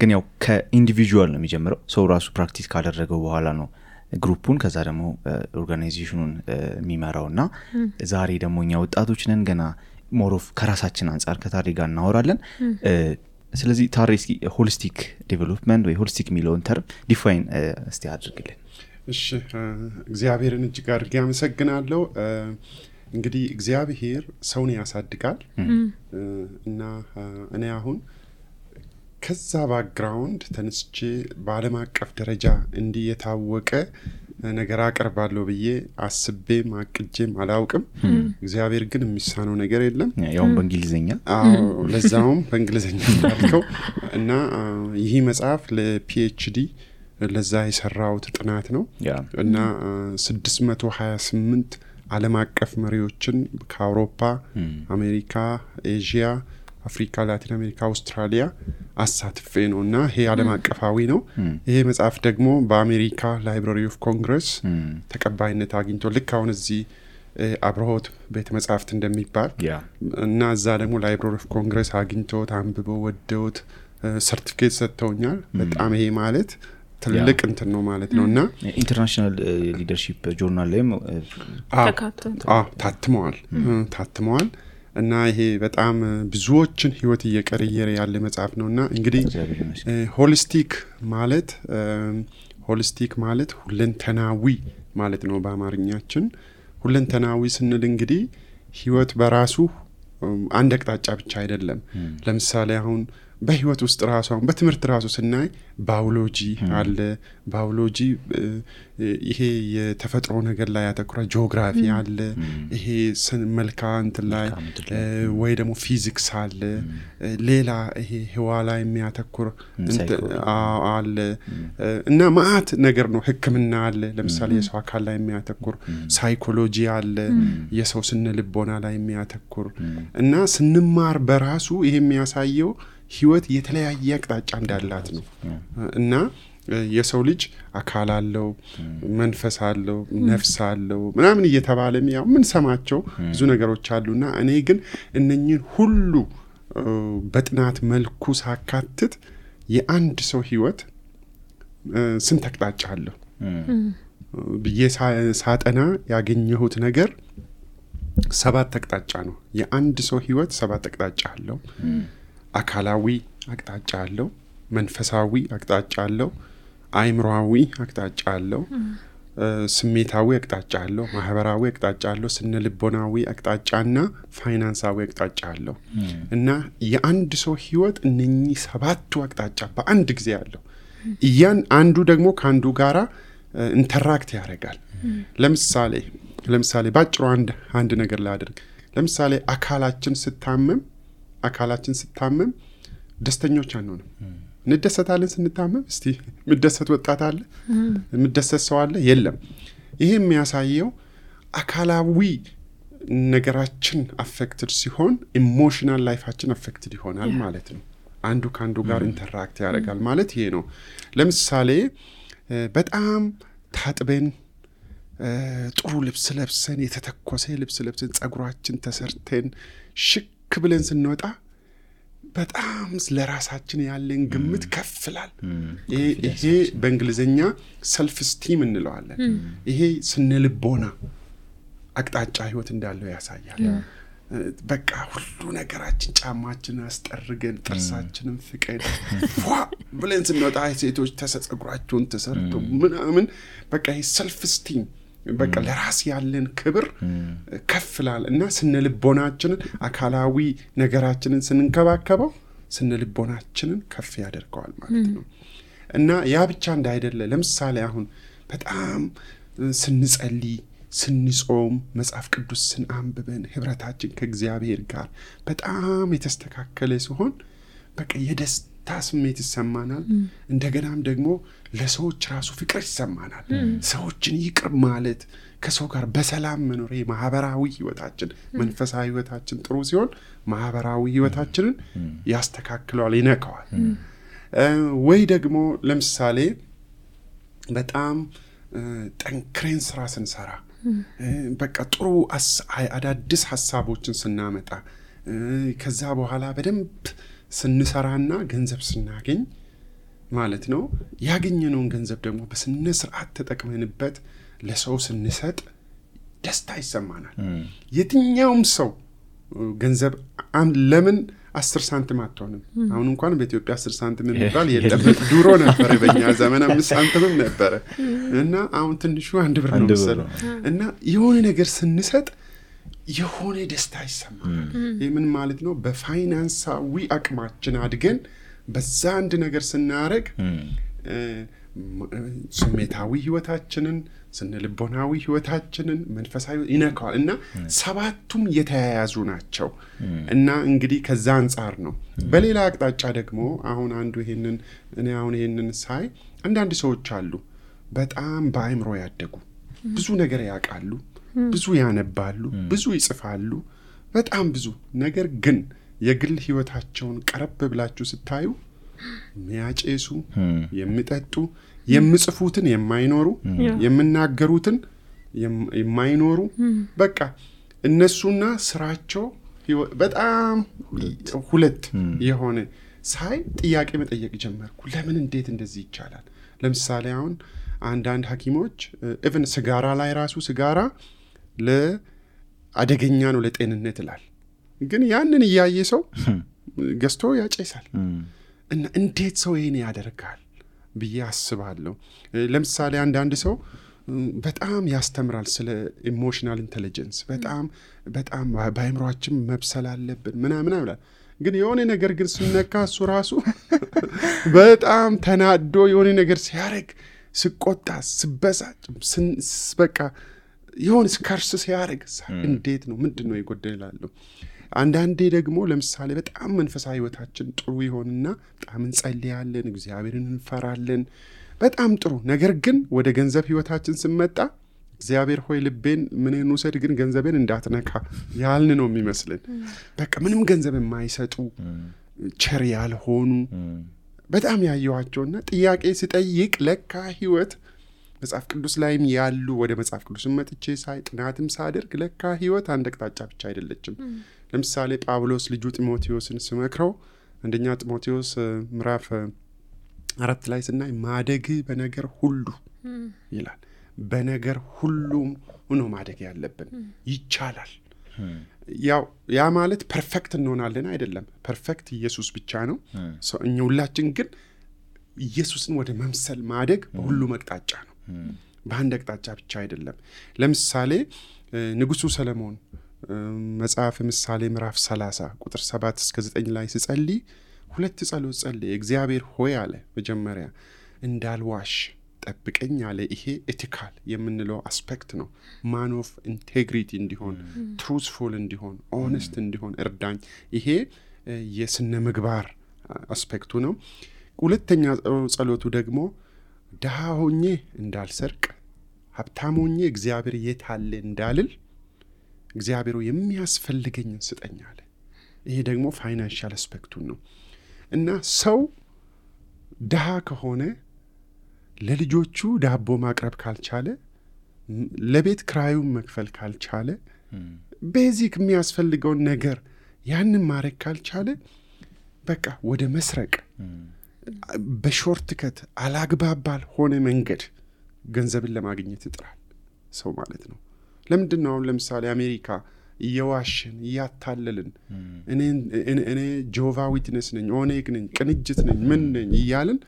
S1: ግን ያው ከኢንዲቪጁዋል ነው የሚጀምረው። ሰው ራሱ ፕራክቲስ ካደረገው በኋላ ነው ግሩፑን ከዛ ደግሞ ኦርጋናይዜሽኑን የሚመራውና ዛሬ ደግሞ እኛ ወጣቶች ነን ገና ሞሮፍ ከራሳችን አንፃር ከታሪ ጋር እናወራለን። ስለዚህ ታሪ እስኪ ሆሊስቲክ ዴቨሎፕመንት ወይ ሆሊስቲክ የሚለውን ተርም ዲፋይን እስቲ አድርግልን።
S3: እሺ እግዚአብሔርን እጅግ አድርጌ አመሰግናለሁ። እንግዲህ እግዚአብሔር ሰውን ያሳድጋል እና እኔ አሁን ከዛ ባክግራውንድ ተነስቼ በዓለም አቀፍ ደረጃ እንዲህ የታወቀ ነገር አቀርባለሁ ብዬ አስቤም አቅጄም አላውቅም። እግዚአብሔር ግን የሚሳነው ነገር የለም።
S1: ያውም በእንግሊዘኛ
S3: ለዛውም በእንግሊዘኛ ታልከው እና ይህ መጽሐፍ ለፒኤችዲ ለዛ የሰራውት ጥናት ነው እና 628 ዓለም አቀፍ መሪዎችን ከአውሮፓ፣ አሜሪካ፣ ኤዥያ፣ አፍሪካ፣ ላቲን አሜሪካ፣ አውስትራሊያ አሳትፌ ነውና ይሄ ዓለም አቀፋዊ ነው። ይሄ መጽሐፍ ደግሞ በአሜሪካ ላይብራሪ ኦፍ ኮንግረስ ተቀባይነት አግኝቶ ልክ አሁን እዚህ አብርሆት ቤተ መጻሕፍት እንደሚባል እና እዛ ደግሞ ላይብራሪ ኦፍ ኮንግረስ አግኝቶት አንብበው ወደውት ሰርቲፊኬት ሰጥተውኛል። በጣም ይሄ ማለት ትልቅ እንትን ነው ማለት ነውና
S1: ኢንተርናሽናል ሊደርሺፕ ጆርናል ላይም
S3: ታትመዋል እና ይሄ በጣም ብዙዎችን ህይወት እየቀየረ ያለ መጽሐፍ ነውና እንግዲህ ሆሊስቲክ ማለት ሁለንተናዊ ማለት ነው በአማርኛችን። ሁለንተናዊ ስንል እንግዲህ ህይወት በራሱ አንድ አቅጣጫ ብቻ አይደለም። ለምሳሌ አሁን በህይወት ውስጥ ራሱ አሁን በትምህርት ራሱ ስናይ ባዮሎጂ አለ። ባዮሎጂ ይሄ የተፈጥሮ ነገር ላይ ያተኩራ፣ ጂኦግራፊ አለ፣ ይሄ መልክዓ እንትን ላይ ወይ ደግሞ ፊዚክስ አለ፣ ሌላ ይሄ ህዋ ላይ የሚያተኩር አለ እና ማአት ነገር ነው። ህክምና አለ፣ ለምሳሌ የሰው አካል ላይ የሚያተኩር፣ ሳይኮሎጂ አለ፣ የሰው ስነ ልቦና ላይ የሚያተኩር እና ስንማር በራሱ ይሄ የሚያሳየው ህይወት የተለያየ አቅጣጫ እንዳላት ነው እና የሰው ልጅ አካል አለው፣ መንፈስ አለው፣ ነፍስ አለው ምናምን እየተባለም ያው ምን ሰማቸው ብዙ ነገሮች አሉና እኔ ግን እነኚህን ሁሉ በጥናት መልኩ ሳካትት የአንድ ሰው ህይወት ስንት አቅጣጫ አለው ብዬ ሳጠና ያገኘሁት ነገር 7 አቅጣጫ ነው። የአንድ ሰው ህይወት 7 አቅጣጫ አለው። አካላዊ አቅጣጫ አለው፣ መንፈሳዊ አቅጣጫ አለው፣ አይምሮአዊ አቅጣጫ አለው፣ ስሜታዊ አቅጣጫ አለው፣ ማህበራዊ አቅጣጫ አለው፣ ስነልቦናዊ አቅጣጫና ፋይናንሳዊ አቅጣጫ አለው። እና የአንድ ሰው ህይወት እነኚህ 7ቱ አቅጣጫ በአንድ ጊዜ አለው። አንዱ ደግሞ ከአንዱ ጋራ ኢንተራክት ያደርጋል። ለምሳሌ ባጭሩ አንድ ነገር ላድርግ። ለምሳሌ አካላችን ስታመም ደስተኞች አንሆንም። እንደሰታለን ስንታመም። እስቲ ምደሰት ወጣት አለ? ምደሰት ሰው አለ? የለም። ይሄ የሚያሳየው አካላዊ ነገራችን አፌክትድ ሲሆን ኢሞሽናል ላይፋችን አፌክትድ ይሆናል ማለት ነው። አንዱ ከአንዱ ጋር ኢንተራክት ያደርጋል ማለት ይሄ ነው። ለምሳሌ በጣም ታጥበን ጥሩ ልብስ ለብሰን የተተኮሰ ልብስ ለብሰን ጸጉራችን ተሰርተን ሽክ ብለን ስንወጣ በጣም ለራሳችን ያለን ግምት ከፍላል። ይሄ በእንግሊዘኛ ሰልፍ ስቲም እንለዋለን። ይሄ ስነልቦና አቅጣጫ ህይወት እንዳለው ያሳያል። በቃ ሁሉ ነገራችን ጫማችን አስጠርገን ጥርሳችንን ፍቀን ብለን ስንወጣ ሴቶች ጸጉራቸውን ተሰርቶ ምናምን በቃ ይሄ ሰልፍ ስቲም በቃ ለራስ ያለን ክብር ከፍላል። እና ስነልቦናችንን አካላዊ ነገራችንን ስንንከባከበው ስነልቦናችንን ከፍ ያደርገዋል ማለት ነው። እና ያ ብቻ እንዳይደለ ለምሳሌ አሁን በጣም ስንጸልይ ስንጾም መጽሐፍ ቅዱስ ስናንብበን ህብረታችን ከእግዚአብሔር ጋር በጣም የተስተካከለ ሲሆን በቃ የደስታ ስሜት ይሰማናል። እንደገናም ደግሞ ለሰዎች ራሱ ፍቅር ይሰማናል። ሰዎችን ይቅር ማለት፣ ከሰው ጋር በሰላም መኖር፣ ማህበራዊ ህይወታችን መንፈሳዊ ህይወታችን ጥሩ ሲሆን ማህበራዊ ህይወታችንን ያስተካክለዋል፣ ይነካዋል። ወይ ደግሞ ለምሳሌ በጣም ጠንክረን ስራ ስንሰራ በቃ ጥሩ አዳዲስ ሐሳቦችን ስናመጣ ከዛ በኋላ በደንብ ስንሰራና ገንዘብ ስናገኝ ማለት ነው ያገኘነውን ገንዘብ ደግሞ በስነ ስርዓት ተጠቅመንበት ለሰው ስንሰጥ ደስታ ይሰማናል። የትኛውም ሰው ገንዘብ ለምን 10 ሳንቲም አትሆንም? አሁን እንኳን በኢትዮጵያ 10 ሳንቲም የሚባል የለም። ድሮ ነበር በእኛ ዘመን 5 ሳንቲምም ነበር እና አሁን ትንሹ 1 ብር ነው መሰለኝ። እና የሆነ ነገር ስንሰጥ የሆነ ደስታ ይሰማናል። ይሄ ምን ማለት ነው? በፋይናንሳዊ አቅማችን አድገን በዛ አንድ ነገር ስናረግ ስሜታዊ ህይወታችንን ስነልቦናዊ ህይወታችንን መንፈሳዊ ይነካዋል። እና 7ቱም የተያያዙ ናቸው። እና እንግዲህ ከዛ አንፃር ነው። በሌላ አቅጣጫ ደግሞ አሁን ይሄንን ሳይ አንዳንድ ሰዎች አሉ በጣም በአይምሮ ያደጉ ብዙ ነገር ያውቃሉ፣ ብዙ ያነባሉ፣ ብዙ ይጽፋሉ፣ በጣም ብዙ ነገር ግን የግል ህይወታቸውን ቀረብ ብላችሁ ስታዩ የሚያጨሱ፣ የሚጠጡ፣ የሚጽፉትን የማይኖሩ፣ የሚናገሩትን የማይኖሩ በቃ እነሱና ስራቸው በጣም ሁለት የሆነ ሳይ ጥያቄ መጠየቅ ጀመርኩ። ለምን እንዴት እንደዚህ ይቻላል? ለምሳሌ አሁን አንዳንድ ሐኪሞች ኢቭን ሲጋራ ላይ ራሱ ሲጋራ ለአደገኛ ነው ለጤንነት ይላል። ግን ያንን እያየ ሰው ገዝቶ ያጨሳል። እና እንዴት ሰው ይሄን ያደርጋል ብዬ አስባለሁ። ለምሳሌ አንዳንድ ሰው በጣም ያስተምራል ስለ ኢሞሽናል ኢንተለጀንስ በጣም በአይምሮአችን መብሰል አለብን ምናምን ይላል። ግን የሆነ ነገር ግን ስነካ እሱ ራሱ በጣም ተናዶ የሆነ ነገር ሲያረግ ስቆጣ ስበሳጭ በቃ የሆነ ስከርስ ሲያረግ እንዴት ነው ምንድነው ይጎደላል? አንዳንዴ ደግሞ ለምሳሌ በጣም መንፈሳዊ ህይወታችን ጥሩ ይሆንና በጣም እንጸልያለን፣ እግዚአብሔርን እንፈራለን፣ በጣም ጥሩ ነገር ግን ወደ ገንዘብ ህይወታችን ስንመጣ እግዚአብሔር ሆይ ልቤን ምንን ውሰድ ግን ገንዘቤን እንዳትነካ ያልን ነው የሚመስልን። በቃ ምንም ገንዘብ የማይሰጡ ቸር ያልሆኑ በጣም ያየዋቸውና ጥያቄ ሲጠይቅ ለካ ህይወት መጽሐፍ ቅዱስ ላይም ያሉ ወደ መጽሐፍ ቅዱስም መጥቼ ሳይ ጥናትም ሳደርግ ለካ ህይወት አንድ አቅጣጫ ብቻ አይደለችም። ለምሳሌ ጳውሎስ ልጁ ጢሞቴዎስን ሲመክረው አንደኛ ጢሞቴዎስ ምዕራፍ 4 ላይ ስናይ ማደግ በነገር ሁሉ ይላል። በነገር ሁሉም ሆኖ ማደግ ያለብን ይቻላል። ያ ማለት ፐርፌክት እንሆናለን አይደለም። ፐርፌክት ኢየሱስ ብቻ ነው። እኛ ሁላችን ግን ኢየሱስን ወደ መምሰል ማደግ በሁሉም አቅጣጫ ነው። በአንድ አቅጣጫ ብቻ አይደለም። ለምሳሌ ንጉሱ ሰለሞን መጽሐፍ ምሳሌ ምዕራፍ 30 ቁጥር 7 እስከ 9 ላይ ሲጸልይ 2 ጸሎት ጸለየ። እግዚአብሔር ሆይ አለ መጀመሪያ እንዳልዋሽ ጠብቀኝ አለ። ይሄ ኤቲካል የምንለው አስፔክት ነው። ማን ኦፍ ኢንቴግሪቲ እንዲሆን፣ ትሩዝፉል እንዲሆን፣ ኦነስት እንዲሆን እርዳኝ። ይሄ የስነ ምግባር አስፔክቱ ነው። ሁለተኛ ጸሎቱ ደግሞ ድሃ ሆኜ እንዳልሰርቅ፣ ሀብታም ሆኜ እግዚአብሔር የት አለ እንዳልል እግዚአብሔር የሚያስፈልገኝን ስጠኝ አለ። ይሄ ደግሞ ፋይናንሻል አስፔክቱን ነው። እና ሰው ድሃ ከሆነ ለልጆቹ ዳቦ ማቅረብ ካልቻለ፣ ለቤት ክራዩን መክፈል ካልቻለ፣ ቤዚክ የሚያስፈልገውን ነገር ያንን ማድረግ ካልቻለ በቃ ወደ መስረቅ በሾርት ከት አላግባብ ባልሆነ መንገድ ገንዘብን ለማግኘት ይጥራል ሰው ማለት ነው። ለምንድን ነው አሁን ለምሳሌ አሜሪካ እየዋሽን እያታለልን እኔ ጆቫ ዊትነስ ነኝ፣ ኦኔግ ነኝ፣ ቅንጅት ነኝ፣ ምን ነኝ እያልን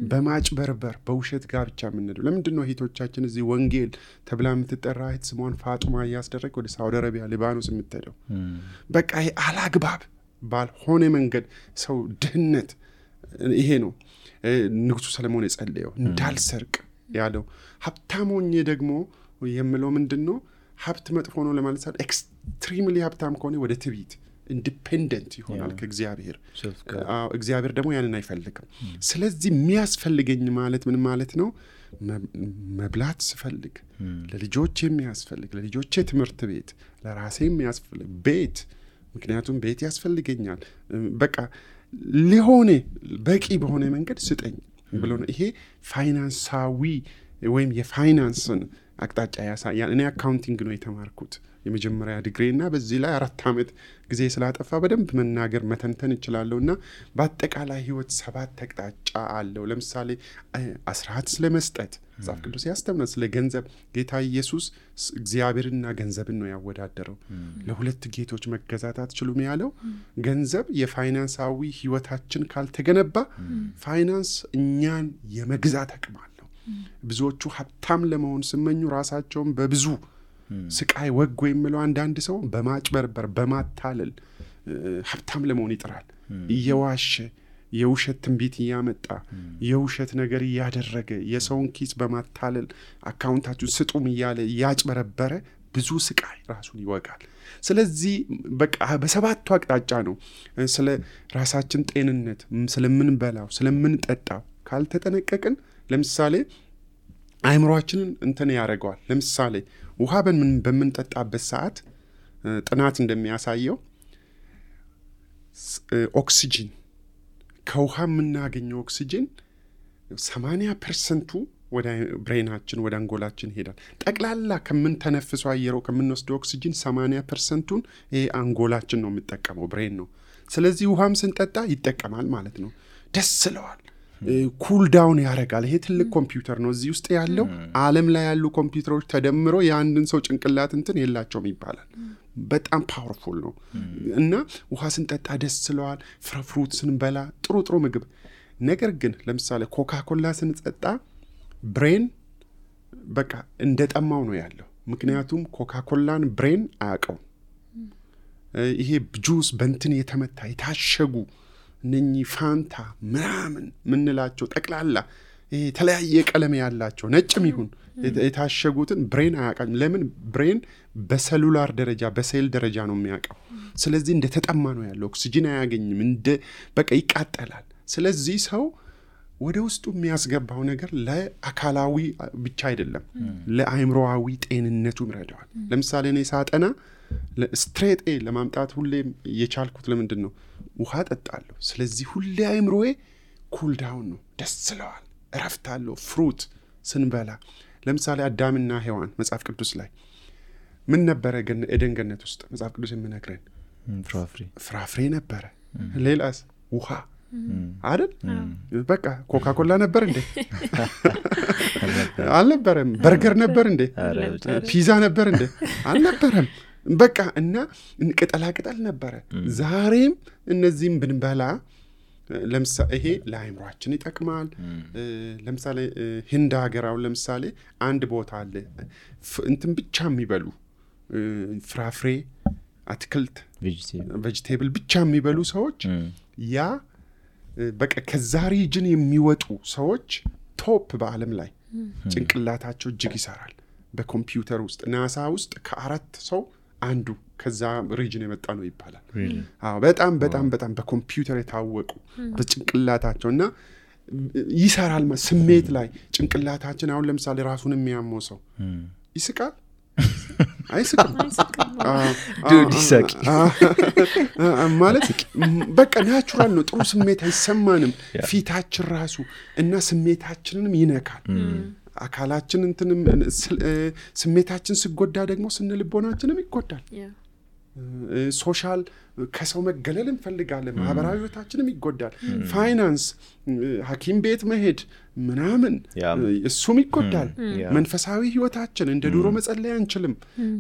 S3: በማጭበርበር በውሸት ጋብቻ የምንሄደው? ለምንድን ነው እህቶቻችን እዚህ ወንጌል ተብላ የምትጠራ እህት ስሟን ፋጡማ እያስደረግ ወደ ሳውዲ አረቢያ፣ ሊባኖስ የምትሄደው? በቃ ይሄ አላግባብ ባልሆነ መንገድ ሰው ድህነት፣ ይሄ ነው ንጉሱ ሰለሞን የጸለየው እንዳልሰርቅ ያለው። ሀብታም ሆኜ ደግሞ የምለው ምንድን ነው? ሀብት መጥፎ ነው ለማለት ሳይሆን ኤክስትሪምሊ ሀብታም ከሆነ ወደ ትዕቢት ኢንዲፔንደንት ይሆናል ከእግዚአብሔር። እግዚአብሔር ደግሞ ያንን አይፈልግም። ስለዚህ የሚያስፈልገኝ ማለት ምን ማለት ነው? መብላት ስፈልግ ለልጆቼ የሚያስፈልግ፣ ለልጆቼ ትምህርት ቤት፣ ለራሴ የሚያስፈልግ ቤት፣ ምክንያቱም ቤት ያስፈልገኛል። በቃ ሊሆነ በቂ በሆነ መንገድ ስጠኝ ብሎ ነው። ይሄ ፋይናንሳዊ ወይም የፋይናንስን አቅጣጫ ያሳያል። እኔ አካውንቲንግ ነው የተማርኩት የመጀመሪያ ዲግሪ እና በዚህ ላይ 4 ዓመት ጊዜ ስላጠፋ በደንብ መናገር መተንተን እችላለሁ። እና በአጠቃላይ ህይወት 7 አቅጣጫ አለው። ለምሳሌ አስራት ስለመስጠት መጽሐፍ ቅዱስ ያስተምራል። ስለ ገንዘብ ጌታ ኢየሱስ እግዚአብሔርና ገንዘብን ነው ያወዳደረው። ለሁለት ጌቶች መገዛት አትችሉም ያለው ገንዘብ የፋይናንሳዊ ህይወታችን ካልተገነባ ፋይናንስ እኛን የመግዛት አቅም አለው። ብዙዎቹ ሀብታም ለመሆን ሲመኙ ራሳቸውን በብዙ ስቃይ ወግ የሚለው አንዳንድ ሰው በማጭበርበር በማታለል ሀብታም ለመሆን ይጥራል። እየዋሸ የውሸት ትንቢት እያመጣ የውሸት ነገር እያደረገ የሰውን ኪስ በማታለል አካውንታችሁ ስጡም እያለ እያጭበረበረ ብዙ ስቃይ ራሱን ይወጋል። ስለዚህ በቃ በሰባቱ አቅጣጫ ነው ስለ ራሳችን ጤንነት፣ ስለምንበላው፣ ስለምንጠጣው ካልተጠነቀቅን ለምሳሌ አይምሮአችንን እንትን ያደርገዋል። ለምሳሌ ውሃ በምንጠጣበት ሰዓት ጥናት እንደሚያሳየው ኦክሲጅን ከውሃ የምናገኘው ኦክሲጅን 80% ወደ ብሬናችን ወደ አንጎላችን ይሄዳል። ጠቅላላ ከምንተነፍሰው አየር ከምንወስደው ኦክሲጅን 80%ን ይሄ አንጎላችን ነው የሚጠቀመው፣ ብሬን ነው። ስለዚህ ውሃም ስንጠጣ ይጠቀማል ማለት ነው። ደስ ይለዋል፣ ኩል ዳውን ያደርጋል። ይሄ ትልቅ ኮምፒውተር ነው። እዚህ ውስጥ ያለው ዓለም ላይ ያሉ ኮምፒውተሮች ተደምሮ የአንድን ሰው ጭንቅላት እንትን የላቸውም ይባላል። በጣም ፓወርፉል ነው። እና ውሃ ስንጠጣ ደስ ይለዋል፣ ፍሩት ስንበላ ጥሩ ጥሩ ምግብ። ነገር ግን ለምሳሌ ኮካኮላ ስንጠጣ ብሬን በቃ እንደጠማው ነው ያለው። ምክንያቱም ኮካኮላን ብሬን አያውቀውም። ይሄ ጁስ በእንትን የተመታ የታሸጉ እነኚህ ፋንታ ምናምን ምንላቸው ጠቅላላ የተለያየ ቀለም ያላቸው ነጭም ይሁን የታሸጉትን ብሬን አያውቃም። ለምን? ብሬን በሰሉላር ደረጃ በሴል ደረጃ ነው የሚያውቀው። ስለዚህ እንደተጠማ ነው ያለው። ኦክሲጅን አያገኝም፣ በቃ ይቃጠላል። ስለዚህ ሰው ወደ ውስጡ የሚያስገባው ነገር ለአካላዊ ብቻ አይደለም፣ ለአይምሮአዊ ጤንነቱም ይረዳዋል። ለምሳሌ እኔ ሳጠና ስትሬት ኤ ለማምጣት ሁሌም የቻልኩት ለምንድን ነው? ውሃ ጠጣለሁ። ስለዚህ ሁሌ አይምሮዬ ኩል ዳውን ነው፣ ደስ ይለዋል፣ እረፍት አለው። ፍሩት ስንበላ ለምሳሌ አዳምና ሔዋን መጽሐፍ ቅዱስ ላይ ምን ነበረ? ኤደን ገነት ውስጥ መጽሐፍ ቅዱስ የምነግረን ፍራፍሬ ነበረ። ሌላስ? ውሃ አይደል? በቃ ኮካኮላ ነበር እንዴ? አልነበረም። በርገር ነበር እንዴ? ፒዛ ነበር እንዴ? አልነበረም። በቃ እና ቅጠላ ቅጠል ነበረ። ዛሬም እነዚህም ብንበላ ለምሳሌ ይሄ ለአይምሯችን ይጠቅማል። ለምሳሌ ህንድ ሀገር አሁን ለምሳሌ አንድ ቦታ አለ እንትን ብቻ የሚበሉ ፍራፍሬ፣ አትክልት፣ ቬጂቴብል ብቻ የሚበሉ ሰዎች ያ በቃ ከዛ ሪጅን የሚወጡ ሰዎች ቶፕ በዓለም ላይ ጭንቅላታቸው እጅግ ይሰራል። በኮምፒውተር ውስጥ ናሳ ውስጥ ከ4 ሰው አንዱ ከዛ ሪጅን የመጣ ነው ይባላል። አዎ በጣም በጣም በጣም በኮምፒውተር የታወቁ በጭንቅላታቸው እና ይሰራል። ስሜት ላይ ጭንቅላታችን አሁን ለምሳሌ ራሱን የሚያመው ሰው ይስቃል አይስቅም?
S1: ይሳቂ
S3: ማለት በቃ ናቹራል ነው። ጥሩ ስሜት አይሰማንም ፊታችን ራሱ እና ስሜታችንንም ይነካል። አካላችን እንትንም ስሜታችን ሲጎዳ ደግሞ ስነልቦናችንም ይጎዳል። ሶሻል ከሰው መገለል እንፈልጋለን። ማህበራዊ ህይወታችንም ይጎዳል። ፋይናንስ፣ ሐኪም ቤት መሄድ ምናምን እሱም ይጎዳል። መንፈሳዊ ህይወታችን እንደ ድሮ መጸለይ አንችልም።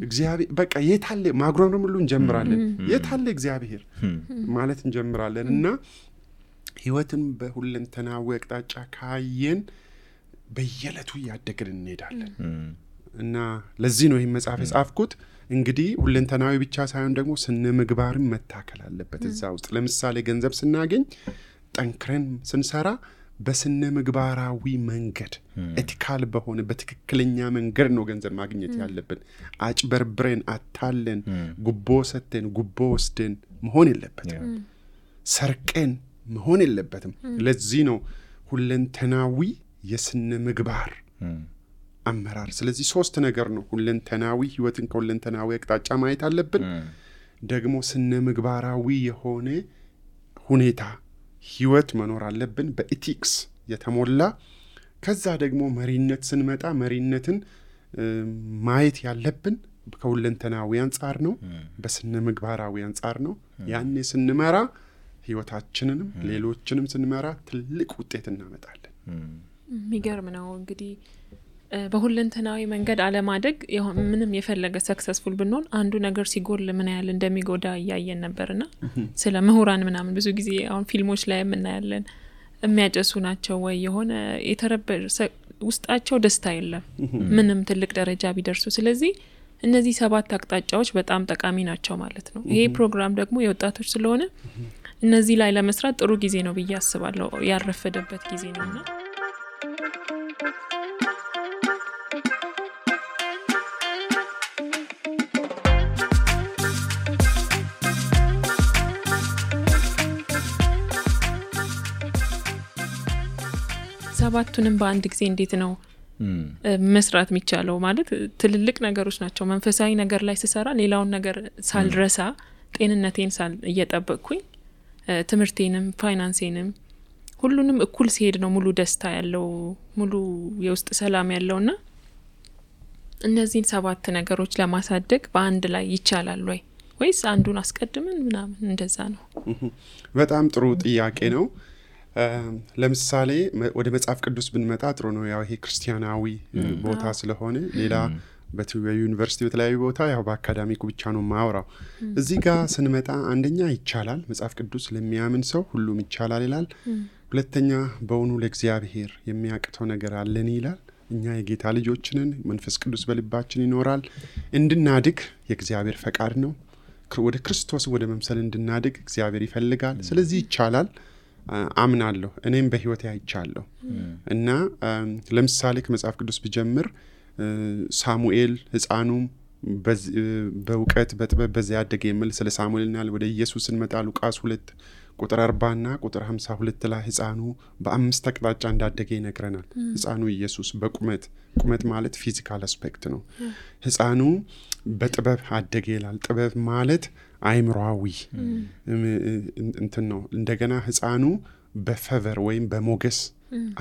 S3: እግዚአብሔር በቃ የታለ ማጉረምረም ሁሉ እንጀምራለን። የታለ እግዚአብሔር ማለት እንጀምራለን እና ህይወትን በሁለንተናዊ አቅጣጫ ካየን በየዕለቱ ያደግን እንሄዳለን እና ለዚህ ነው ይሄን መጽሐፍ የጻፍኩት። እንግዲህ ሁለንተናዊ ብቻ ሳይሆን ደግሞ ስነ ምግባርም መታከል አለበት እዛ ውስጥ። ለምሳሌ ገንዘብ ስናገኝ ጠንክረን ስንሰራ በስነ ምግባራዊ መንገድ ኤቲካል በሆነ በትክክለኛ መንገድ ነው ገንዘብ ማግኘት ያለብን። አጭበርብረን አታለን ጉቦ ሰተን ጉቦ ወስደን መሆን የለበትም። ሰርቀን መሆን የለበትም። ለዚህ ነው ሁለንተናዊ የስነ ምግባር አመራር። ስለዚህ 3 ነገር ነው። ሁለንተናዊ ህይወትን ከሁለንተናዊ አቅጣጫ ማየት አለብን። ደግሞ ስነ ምግባራዊ የሆነ ሁኔታ ህይወት መኖር አለብን በኢቲክስ የተሞላ። ከዛ ደግሞ መሪነት ስንመጣ መሪነትን ማየት ያለብን ከሁለንተናዊ አንጻር ነው፣ በስነ ምግባራዊ አንጻር ነው። ያኔ ስንመራ ህይወታችንንም ሌሎችንም ስንመራ ትልቅ ውጤት እናመጣለን።
S2: የሚገርም ነው። እንግዲህ በሁለንተናዊ መንገድ አለማደግ ምንም የፈለገ ሰክሰስፉል ብንሆን አንዱ ነገር ሲጎል ምን ያህል እንደሚጎዳ ያያየን ነበርና ስለ ምሁራን ምናምን ብዙ ጊዜ አሁን ፊልሞች ላይ የምናያለን። የሚያጨሱ ናቸው ወይ የሆነ የተረበሸ ውስጣቸው ደስታ የለም ምንም ትልቅ ደረጃ ቢደርሱ። ስለዚህ እነዚህ 7 አቅጣጫዎች በጣም ጠቃሚ ናቸው ማለት ነው። ይሄ ፕሮግራም ደግሞ የወጣቶች ስለሆነ እነዚህ ላይ ለመስራት ጥሩ ጊዜ ነው ብዬ አስባለሁ። ያረፈደበት ጊዜ ነውና ሰባቱንም በአንድ ጊዜ እንዴት ነው መስራት የሚቻለው? ማለት ትልልቅ ነገሮች ናቸው። መንፈሳዊ ነገር ላይ ስሰራ ሌላውን ነገር ሳልረሳ ጤንነቴን እየጠበቅኩኝ ትምህርቴንም ፋይናንሴንም ሁሉንም እኩል ሲሄድ ነው ሙሉ ደስታ ያለው ሙሉ የውስጥ ሰላም ያለውና እነዚህን 7 ነገሮች ለማሳደግ በአንድ ላይ ይቻላል ወይ ወይስ አንዱን አስቀድመን ምናምን እንደዛ ነው?
S3: በጣም ጥሩ ጥያቄ ነው። ለምሳሌ ወደ መጽሐፍ ቅዱስ ብንመጣ ጥሩ ነው። ያው ይሄ ክርስቲያናዊ ቦታ ስለሆነ ሌላ በዩኒቨርሲቲ በተለያዩ ቦታ ያው በአካዳሚኩ ብቻ ነው ማወራው። እዚህ ጋር ስንመጣ አንደኛ ይቻላል፣ መጽሐፍ ቅዱስ ለሚያምን ሰው ሁሉም ይቻላል ይላል። ሁለተኛ በእውኑ ለእግዚአብሔር የሚያቅተው ነገር አለን ይላል። እኛ የጌታ ልጆች ነን፣ መንፈስ ቅዱስ በልባችን ይኖራል። እንድናድግ የእግዚአብሔር ፈቃድ ነው። ወደ ክርስቶስ ወደ መምሰል እንድናድግ እግዚአብሔር ይፈልጋል። ስለዚህ ይቻላል አምናለሁ። እኔም በህይወቴ አይቻለሁ እና ለምሳሌ ከመጽሐፍ ቅዱስ ብጀምር ሳሙኤል ህፃኑም በእውቀት በጥበብ በዚያ ያደገ የሚል ስለ ሳሙኤልና ወደ ኢየሱስ እንመጣ ሉቃስ 2 ቁጥር 40 እና ቁጥር 52 ላይ ህፃኑ በ5 አቅጣጫ እንዳደገ ይነግረናል። ህፃኑ ኢየሱስ ቁመት ማለት ፊዚካል አስፔክት ነው። ህፃኑ በጥበብ አደገ ይላል። ጥበብ ማለት አይምሮአዊ እንትን ነው። እንደገና ህፃኑ በፌቨር ወይም በሞገስ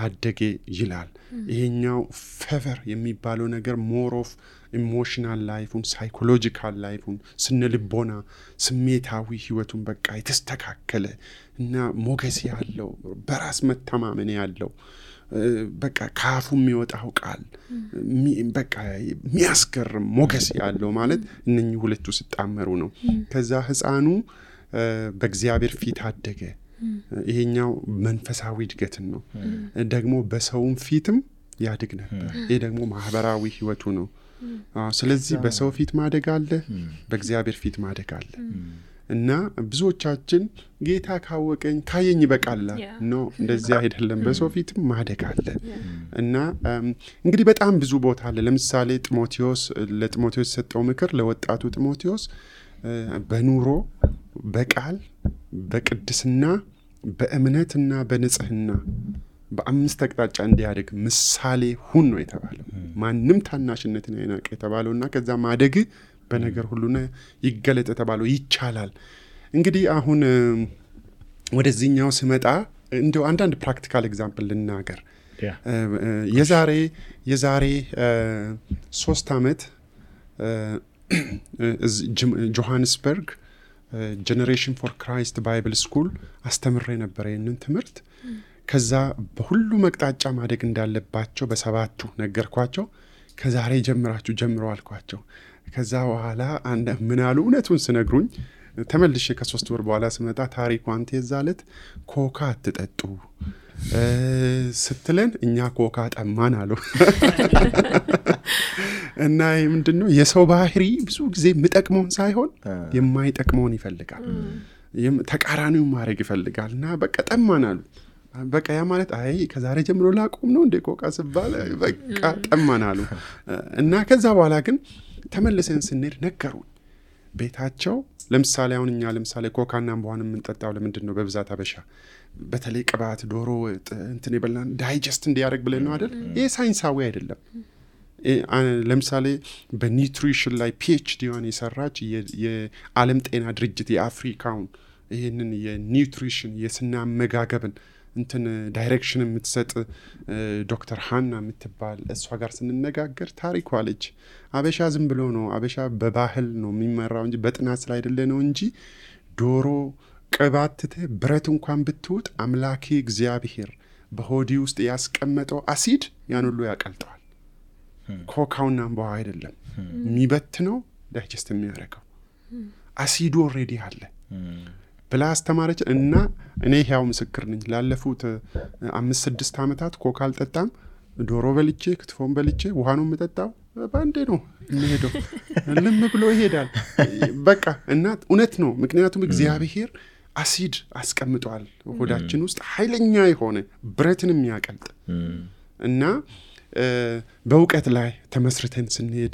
S3: አደገ ይላል። ይሄኛው ፌቨር የሚባለው ነገር ሞር ኦፍ ኢሞሽናል ላይፉን ሳይኮሎጂካል ላይፉን ስነልቦና ስሜታዊ ህይወቱን በቃ የተስተካከለ እና ሞገስ ያለው በራስ መተማመን ያለው በቃ ካፉ የሚወጣው ቃል በቃ የሚያስገርም ሞገስ ያለው ማለት እነኚህ ሁለቱ ሲጣመሩ ነው። ከዛ ህፃኑ በእግዚአብሔር ፊት አደገ ይሄኛው መንፈሳዊ እድገትን ነው። ደግሞ በሰውም ፊትም ያድግ ነበር። ይሄ ደግሞ ማህበራዊ ህይወቱ ነው። ስለዚህ በሰው ፊት ማደግ አለ፣ በእግዚአብሔር ፊት ማደግ አለ። እና ብዙዎቻችን ጌታ ካወቀኝ ካየኝ ይበቃል ነው። እንደዚህ አይደለም። በሰው ፊትም ማደግ አለ። እና እንግዲህ በጣም ብዙ ቦታ አለ። ለምሳሌ ለጢሞቴዎስ የሰጠው ምክር ለወጣቱ ጢሞቴዎስ በኑሮ፣ በቃል፣ በቅድስና፣ በእምነትና በንጽህና በአምስት አቅጣጫ እንዲያደግ ምሳሌ ሁን ነው የተባለው። ማንም ታናሽነትን አይናቅ የተባለውና ከዛ ማደግ በነገር ሁሉና ይገለጥ የተባለው ይቻላል። እንግዲህ አሁን ወደዚህኛው ስመጣ እንደው አንዳንድ ፕራክቲካል ኤግዛምፕል ልናገር። የዛሬ 3 ዓመት ጆሃንስበርግ ጀነሬሽን ፎር ክራይስት ባይብል ስኩል አስተምሬ ነበር ይህንን ትምህርት። ከዛ በሁሉ መቅጣጫ ማደግ እንዳለባቸው በሰባቱ ነገርኳቸው። ከዛሬ ጀምራችሁ ጀምሮ አልኳቸው። ከዛ በኋላ ምን አሉ? እውነቱን ስነግሩኝ ተመልሼ ከ3 ወር በኋላ ስመጣ ታሪኩ አንተ የዛለት ኮካ አትጠጡ ስትለን እኛ ኮካ ጠማን አሉ። እና ይህ ምንድነው? የሰው ባህሪ ብዙ ጊዜ የምጠቅመውን ሳይሆን የማይጠቅመውን ይፈልጋል። ተቃራኒውን ማድረግ ይፈልጋል። እና በቃ ጠማን አሉ። በቃ ያ ማለት አይ ከዛሬ ጀምሮ ላቆም ነው እንደ ኮካ ስባል በቃ ጠማን አሉ። እና ከዛ በኋላ ግን ተመልሰን ስንሄድ ነገሩን ቤታቸው። ለምሳሌ አሁን እኛ ለምሳሌ ኮካና አምቧን የምንጠጣው ለምንድን ነው? በብዛት አበሻ በተለይ ቅባት፣ ዶሮ እንትን የበላን ዳይጀስት እንዲያደርግ ብለን ነው አይደል? ይሄ ሳይንሳዊ አይደለም። ለምሳሌ በኒውትሪሽን ላይ PhD የሰራች የዓለም ጤና ድርጅት የአፍሪካውን ይህንን የኒውትሪሽን የስነ አመጋገብን እንትን ዳይሬክሽን የምትሰጥ ዶክተር ሃና የምትባል እሷ ጋር ስንነጋገር ታሪኳ አለች። አበሻ ዝም ብሎ ነው፣ አበሻ በባህል ነው የሚመራው እንጂ በጥናት ስለ አይደለ ነው እንጂ ዶሮ ቅባትተ ብረት እንኳን ብትውጥ አምላኬ እግዚአብሔር በሆዲ ውስጥ ያስቀመጠው አሲድ ያን ሁሉ ያቀልጠዋል። ኮካውና አምባው አይደለም የሚበትነው፣ ዳይጀስት የሚያደርገው አሲዱ ኦልሬዲ አለ ብላ አስተማረች። እና እኔ ያው ምስክር ነኝ። ላለፉት 5-6 ዓመታት ኮካ አልጠጣም። ዶሮ በልቼ ክትፎን በልቼ ውሃ ነው የምጠጣው። ባንዴ ነው የሚሄደው፣ ልም ብሎ ይሄዳል በቃ። እና እውነት ነው፣ ምክንያቱም እግዚአብሔር አሲድ አስቀምጧል ሆዳችን ውስጥ ኃይለኛ የሆነ ብረትን የሚያቀልጥ። እና በእውቀት ላይ ተመስርተን ስንሄድ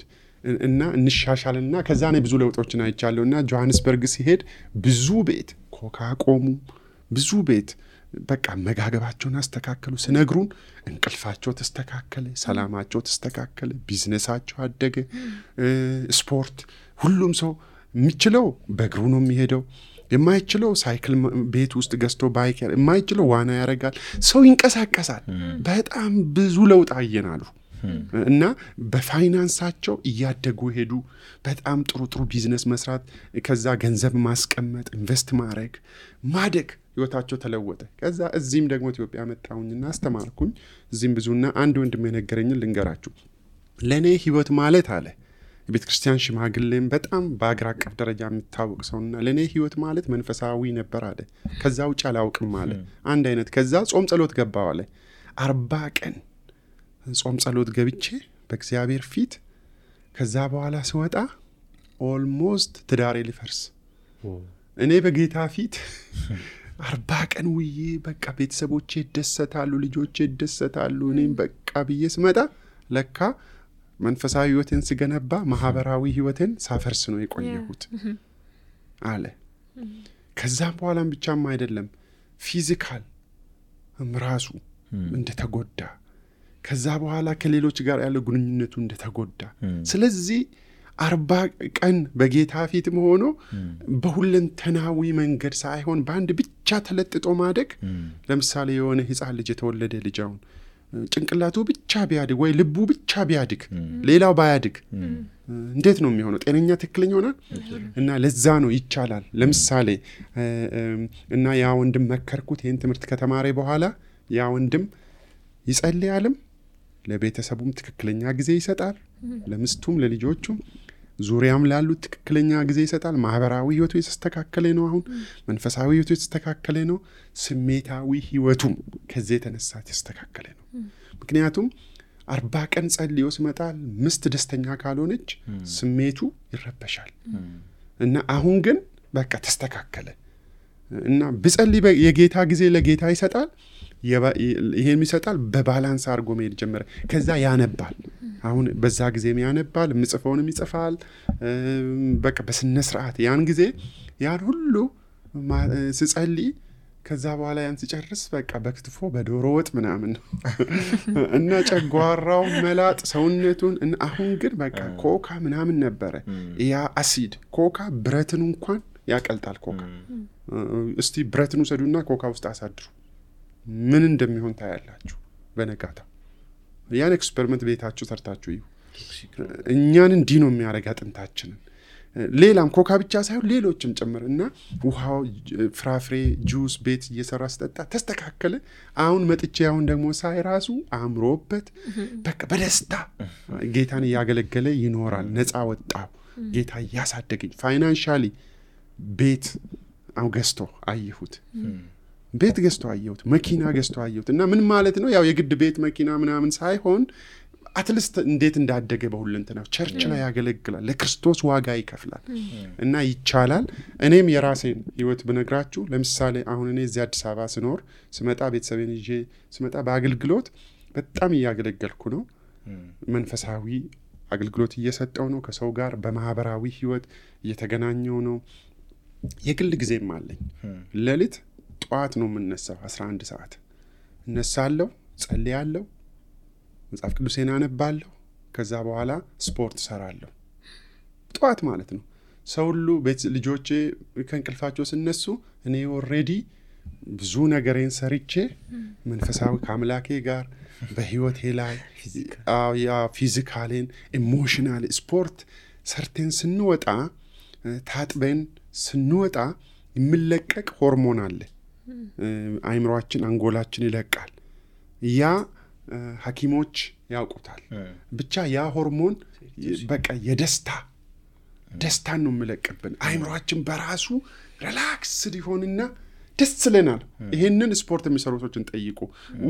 S3: እና እንሻሻልና ከዛ ነው ብዙ ለውጦችን አይቻለሁ። እና ጆሃንስበርግ ሲሄድ ብዙ ቤት ኮካ ቆሙ፣ ብዙ ቤት በቃ መጋገባቸውን አስተካከሉ። ስነግሩን እንቅልፋቸው ተስተካከለ፣ ሰላማቸው ተስተካከለ፣ ቢዝነሳቸው አደገ። ስፖርት ሁሉም ሰው የሚችለው በእግሩ ነው የሚሄደው፣ የማይችለው ሳይክል ቤት ውስጥ ገዝቶ ባይክ፣ የማይችለው ዋና ያደርጋል። ሰው ይንቀሳቀሳል። በጣም ብዙ ለውጥ አየናሉ። እና በፋይናንሳቸው እያደጉ ሄዱ። በጣም ጥሩ ቢዝነስ መስራት፣ ከዛ ገንዘብ ማስቀመጥ፣ ኢንቨስት ማድረግ፣ ማደግ፣ ህይወታቸው ተለወጠ። ከዛ እዚህም ደግሞ ኢትዮጵያ መጣሁኝና አስተማርኩኝ። እዚህም ብዙና አንድ ወንድም የነገረኝን ልንገራችሁ። ለእኔ ህይወት ማለት አለ የቤተ ክርስቲያን ሽማግሌም በጣም በአገር አቀፍ ደረጃ የሚታወቅ ሰውና ለእኔ ህይወት ማለት መንፈሳዊ ነበር አለ። ከዛ ውጭ አላውቅም አለ። አንድ አይነት። ከዛ ጾም ጸሎት ገባው አለ። 40 ቀን ጾም ጸሎት ገብቼ በእግዚአብሔር ፊት። ከዛ በኋላ ስወጣ ኦልሞስት ትዳሬ ሊፈርስ። እኔ በጌታ ፊት 40 ቀን ውዬ በቃ ቤተሰቦቼ ይደሰታሉ፣ ልጆቼ ይደሰታሉ፣ እኔም በቃ ብዬ ስመጣ ለካ መንፈሳዊ ህይወቴን ስገነባ ማህበራዊ ህይወቴን ሳፈርስ ነው የቆየሁት አለ። ከዛም በኋላም ብቻም አይደለም ፊዚካል ራሱ እንደተጎዳ፣ ከዛ በኋላ ከሌሎች ጋር ያለው ግንኙነቱ እንደተጎዳ። ስለዚህ 40 ቀን በጌታ ፊትም ሆኖ በሁለንተናዊ መንገድ ሳይሆን በአንድ ብቻ ተለጥጦ ማደግ። ለምሳሌ የሆነ ህፃን ልጅ የተወለደ ልጅ አሁን ጭንቅላቱ ብቻ ቢያድግ ወይ ልቡ ብቻ ቢያድግ ሌላው ባያድግ እንዴት ነው የሚሆነው? ጤነኛ ትክክለኛ ሆናል? እና ለዛ ነው ይቻላል። ለምሳሌ እና ያ ወንድም መከርኩት ይህን ትምህርት ከተማረ በኋላ ያ ወንድም ይጸልያልም፣ ለቤተሰቡም ትክክለኛ ጊዜ ይሰጣል፣ ለምስቱም ለልጆቹም። ዙሪያም ላሉት ትክክለኛ ጊዜ ይሰጣል። ማህበራዊ ህይወቱ የተስተካከለ ነው። አሁን መንፈሳዊ ህይወቱ የተስተካከለ ነው። ስሜታዊ ህይወቱም ከዚህ የተነሳ የተስተካከለ ነው። ምክንያቱም 40 ቀን ጸልዮ ሲመጣል ምስት ደስተኛ ካልሆነች ስሜቱ ይረበሻል። እና አሁን ግን በቃ ተስተካከለ እና ብጸልይ የጌታ ጊዜ ለጌታ ይሰጣል። ይሄን ይሰጣል። በባላንስ አድርጎ መሄድ ጀመረ። ከዛ ያነባል። አሁን በዛ ጊዜም ያነባል፣ ምጽፈውንም ይጽፋል። በቃ በስነ ስርዓት ያን ጊዜ ያን ሁሉ ስጸልይ ከዛ በኋላ ያን ሲጨርስ በቃ በክትፎ በዶሮ ወጥ ምናምን እና ጨጓራው መላጥ ሰውነቱን። አሁን ግን በቃ ኮካ ምናምን ነበረ። ያ አሲድ ኮካ ብረትን እንኳን ያቀልጣል። ኮካ እስቲ ብረትን ውሰዱና ኮካ ውስጥ አሳድሩ፣ ምን እንደሚሆን ታያላችሁ በነጋታ። ያን ኤክስፐሪመንት ቤታችሁ ሰርታችሁ እዩ። እኛን እንዲህ ነው የሚያደርግ አጥንታችንን። ሌላም ኮካ ብቻ ሳይሆን ሌሎችም ጭምር እና ውሃው፣ ፍራፍሬ፣ ጁስ ቤት እየሰራ ስጠጣ ተስተካከለ። አሁን መጥቼ አሁን ደግሞ ሳይ ራሱ አምሮበት በቃ በደስታ ጌታን እያገለገለ ይኖራል። ነፃ ወጣው። ጌታ እያሳደገኝ ፋይናንሻሊ ቤት ገዝቶ አየሁት። ቤት ገዝቶ አየሁት። መኪና ገዝቶ አየሁት። እና ምን ማለት ነው? ያው የግድ ቤት መኪና ምናምን ሳይሆን አትሊስት እንዴት እንዳደገ በሁለንተናው ቸርች ላይ ያገለግላል። ለክርስቶስ ዋጋ ይከፍላል። እና ይቻላል። እኔም የራሴን ህይወት ብነግራችሁ ለምሳሌ አሁን እኔ እዚህ አዲስ አበባ ስኖር ስመጣ ቤተሰቤን ይዤ ስመጣ በአገልግሎት በጣም እያገለገልኩ ነው። መንፈሳዊ አገልግሎት እየሰጠው ነው። ከሰው ጋር በማህበራዊ ህይወት እየተገናኘው ነው። የግል ጊዜም አለኝ። ሌሊት ጠዋት ነው የምነሳው። 11 ሰዓት እነሳለሁ፣ ጸልያለሁ፣ መጽሐፍ ቅዱሴን አነባለሁ። ከዛ በኋላ ስፖርት ሰራለሁ። ጠዋት ማለት ነው። ሰው ሁሉ ቤት ልጆቼ ከእንቅልፋቸው ሲነሱ እኔ ኦልሬዲ ብዙ ነገሬን ሰርቼ መንፈሳዊ ከአምላኬ ጋር በህይወቴ ላይ ፊዚካሌን ኢሞሽናል ስፖርት ሰርቴን ስንወጣ ታጥበን ስንወጣ የሚለቀቅ ሆርሞን አለ። አይምሮአችን አንጎላችን ይለቃል። ያ ሐኪሞች ያውቁታል። ብቻ ያ ሆርሞን በቃ ደስታን ነው የሚለቅብን። አይምሮአችን በራሱ ሪላክስ ሊሆንና ደስ ይለናል። ይሄንን ስፖርት የሚሰሩ ሰዎችን ጠይቁ።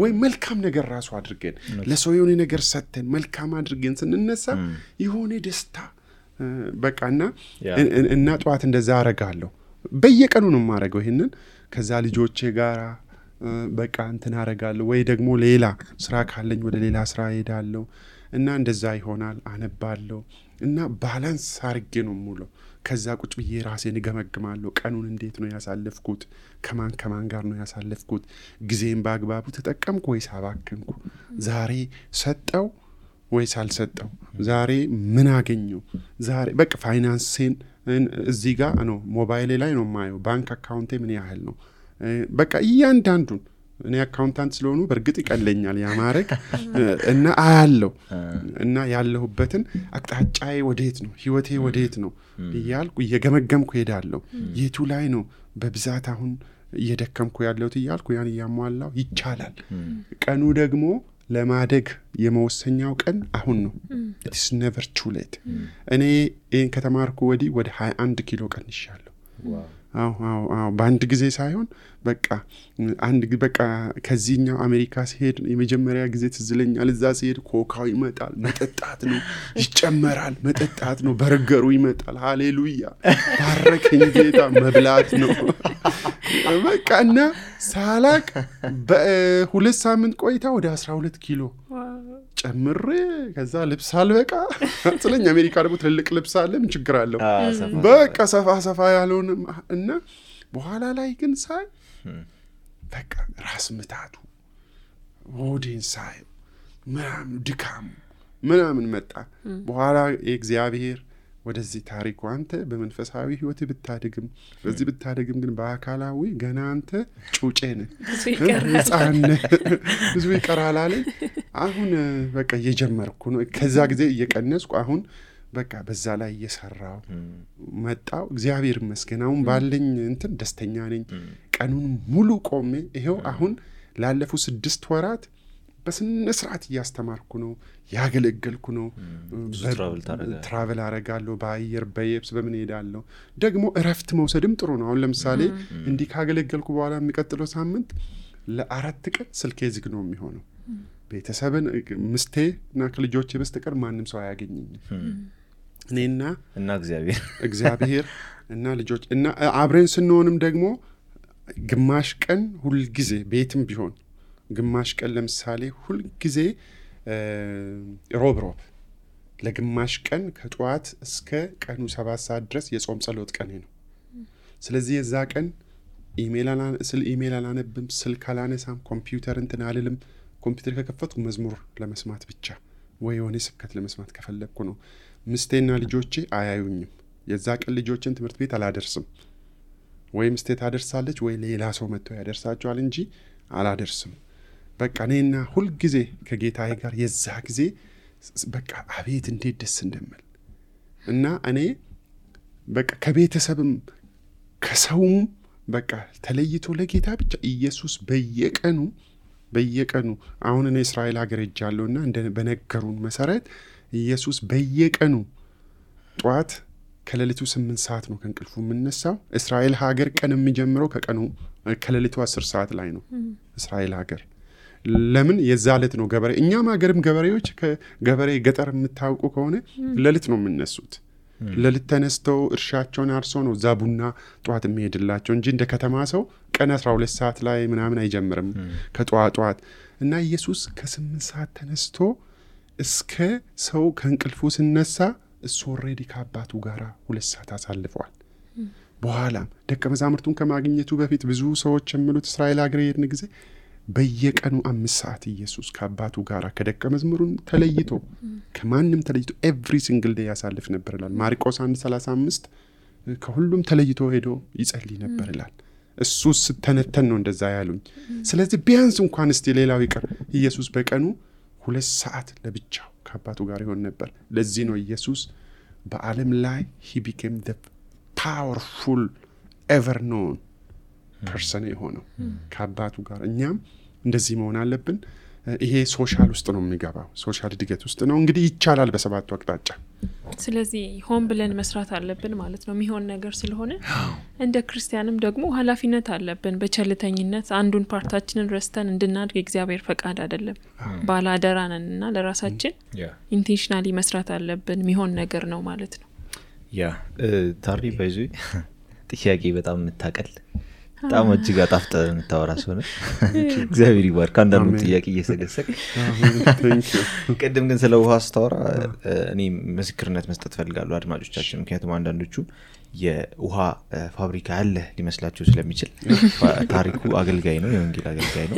S3: ወይ መልካም ነገር ራሱ አድርገን ለሰው የሆነ ነገር ሰጥተን መልካም አድርገን ስንነሳ የሆነ ደስታ በቃና እና ጠዋት እንደዛ አረጋለሁ። በየቀኑ ነው የማረገው ይሄንን። ከዛ ልጆቼ ጋር በቃ እንትን አረጋለሁ። ወይ ደግሞ ሌላ ስራ ካለኝ ወደ ሌላ ስራ ሄዳለሁ እና እንደዛ ይሆናል። አነባለሁ እና ባላንስ አርጌ ነው የምውለው። ከዛ ቁጭ ብዬ ራሴን እገመግማለሁ። ቀኑን እንዴት ነው ያሳለፍኩት? ከማን ጋር ነው ያሳለፍኩት? ጊዜን በአግባቡ ተጠቀምኩ ወይስ አባከንኩ? ዛሬ ሰጠው ወይስ አልሰጠው? ዛሬ ምን አገኘው? ዛሬ በቃ ፋይናንሴን እዚህ ጋር ነው ሞባይሌ ላይ ነው የማየው። ባንክ አካውንቴ ምን ያህል ነው? በቃ እያንዳንዱን እኔ አካውንታንት ስለሆኑ በእርግጥ ይቀለኛል ያማረክ እና አያለው እና ያለሁበትን አቅጣጫዬ ወዴት ነው? ህይወቴ ወዴት ነው እያልኩ እየገመገምኩ ሄዳለሁ። የቱ ላይ ነው በብዛት አሁን እየደከምኩ ያለሁት እያልኩ ያን እያሟላው ይቻላል። ቀኑ ደግሞ ለማደግ የመወሰኛው ቀን አሁን ነው። it's never too late። እኔ ይሄን ከተማርኩ ወዲህ ወደ 21 ኪሎ ቀንሻለሁ። በአንድ ጊዜ ሳይሆን በቃ ከዚህኛው አሜሪካ ሲሄድ የመጀመሪያ ጊዜ ትዝለኛል። እዛ ሲሄድ ኮካው ይመጣል፣ መጠጣት ነው፣ ይጨመራል፣ መጠጣት ነው፣ በርገሩ ይመጣል። ሃሌሉያ ባረከኝ ጌታ፣ መብላት ነው በቃ። እና ሳላቅ በ2 ሳምንት ቆይታ ወደ 12 ኪሎ ጨምሬ ከዛ ልብስ አልበቃ ስለኛ አሜሪካ ደግሞ ትልልቅ ልብስ አለ፣ ምን ችግር አለው? በቃ ሰፋ ያለውን እና በኋላ ላይ ግን ሳይ በቃ ራስ ምታቱ ሆዴን ሳይ ምናምን ድካም ምናምን መጣ። በኋላ እግዚአብሔር ወደዚህ ታሪኩ አንተ በመንፈሳዊ ህይወት ብታድግም በዚህ ብታድግም ግን በአካላዊ ገና አንተ ጩጬ ነህ፣ ህፃን ብዙ ይቀራል አለ። አሁን በቃ እየጀመርኩ ነው። ከዛ ጊዜ እየቀነስኩ አሁን በቃ በዛ ላይ እየሰራው መጣው። እግዚአብሔር ይመስገን አሁን ባለኝ እንትን ደስተኛ ነኝ። ቀኑን ሙሉ ቆሜ ይሄው አሁን ላለፉት 6 ወራት በስነ ስርዓት እያስተማርኩ ነው፣ ያገለገልኩ ነው። ትራቨል አረጋለሁ፣ በአየር በየብስ በምን ሄዳለሁ። ደግሞ እረፍት መውሰድም ጥሩ ነው። አሁን ለምሳሌ እንዲህ ካገለገልኩ በኋላ የሚቀጥለው ሳምንት ለ4 ቀን ስልኬ ዝግ ነው የሚሆነው። ቤተሰብን ምስቴ እና ከልጆቼ በስተቀር ማንም ሰው አያገኘኝም። እኔና እግዚአብሔር እና ልጆች እና አብረን ስንሆንም ደግሞ ግማሽ ቀን ሁል ጊዜ ቤትም ቢሆን ግማሽ ቀን ለምሳሌ ሁል ጊዜ ሮብ ለግማሽ ቀን ከጠዋት እስከ ቀኑ 7 ሰዓት ድረስ የጾም ጸሎት ቀኔ ነው። ስለዚህ የዛ ቀን ኢሜል አላነብም፣ ስልክ አላነሳም፣ ኮምፒውተር እንትን አልልም። ኮምፒውተር ከከፈትኩ መዝሙር ለመስማት ብቻ ወይ የሆነ ስብከት ለመስማት ከፈለግኩ ነው። ምስቴና ልጆቼ አያዩኝም። የዛ ቀን ልጆችን ትምህርት ቤት አላደርስም። ወይ ምስቴ ታደርሳለች ወይ ሌላ ሰው መጥቶ ያደርሳቸዋል እንጂ አላደርስም። በቃ እኔና ሁል ጊዜ ከጌታዬ ጋር የዛ ጊዜ በቃ አቤት እንዴት ደስ እንደምል እና እኔ በቃ ከቤተሰብም ከሰውም በቃ ተለይቶ ለጌታ ብቻ ኢየሱስ በየቀኑ አሁን እኔ እስራኤል ሀገር ሄጃለሁና በነገሩን መሰረት ኢየሱስ በየቀኑ ጧት ከሌሊቱ 8 ሰዓት ነው ከእንቅልፉ የምነሳው። እስራኤል ሀገር ቀን የሚጀምረው ከሌሊቱ 10 ሰዓት ላይ ነው። እስራኤል ሀገር ለምን የዛ ዕለት ነው ገበሬ። እኛም ሀገርም ገበሬዎች ከገበሬ ገጠር የምታውቁ ከሆነ ሌሊት ነው የምነሱት። ሌሊት ተነስተው እርሻቸውን አርሰው ነው እዛ ቡና ጧት የሚሄድላቸው እንጂ እንደ ከተማ ሰው ቀን 12 ሰዓት ላይ ምናምን አይጀምርም ከጧት። እና ኢየሱስ ከ8 ሰዓት ተነስቶ እስከ ሰው ከእንቅልፉ ሲነሳ እሱ ኦልሬዲ ከአባቱ ጋር 2 ሰዓት አሳልፈዋል። በኋላም ደቀ መዛሙርቱን ከማግኘቱ በፊት ብዙ ሰዎች የሚሉት እስራኤል ሀገር የሄድን ጊዜ በየቀኑ 5 ሰዓት ኢየሱስ ከአባቱ ጋር ከደቀ መዝሙሩን ተለይቶ ከማንም ተለይቶ ኤቭሪ ሲንግል ዴይ ያሳልፍ ነበር ይላል ማርቆስ 1:35። ከሁሉም ተለይቶ ሄዶ ይጸልይ ነበር ይላል። እሱ ስተነተን ነው እንደዛ ያሉኝ። ስለዚህ ቢያንስ እንኳን እስቲ ሌላው ይቀር ኢየሱስ በቀኑ 2 ሰዓት ለብቻው ከአባቱ ጋር ይሆን ነበር። ለዚህ ነው ኢየሱስ በዓለም ላይ he became the powerful ever known person የሆነው ከአባቱ ጋር። እኛም እንደዚህ መሆን አለብን። ይሄ ሶሻል ውስጥ ነው የሚገባው፣ ሶሻል እድገት ውስጥ ነው። እንግዲህ ይቻላል በ7 አቅጣጫ።
S2: ስለዚህ ሆን ብለን መስራት አለብን ማለት ነው የሚሆን ነገር ስለሆነ። እንደ ክርስቲያንም ደግሞ ኃላፊነት አለብን። በቸልተኝነት አንዱን ፓርታችንን ረስተን እንድናድግ እግዚአብሔር ፈቃድ አይደለም። ባላደራ ነንና ለራሳችን ኢንቴንሽናሊ መስራት አለብን። የሚሆን ነገር ነው ማለት ነው።
S4: ታሪ ባይዙ ጥያቄ በጣም የምታቀል በጣም እጅግ አጣፍጠ የምታወራ ሰው ነው። እግዚአብሔር ይባርክ። አንዳንዱ ጥያቄ እየሰገሰቅ ቅድም ግን ስለ ውሃ ስታወራ እኔ ምስክርነት መስጠት ፈልጋለሁ አድማጮቻችን። ምክንያቱም አንዳንዶቹ የውሃ ፋብሪካ ያለ ሊመስላችሁ ስለሚችል ታሪኩ አገልጋይ ነው፣ የወንጌል አገልጋይ ነው።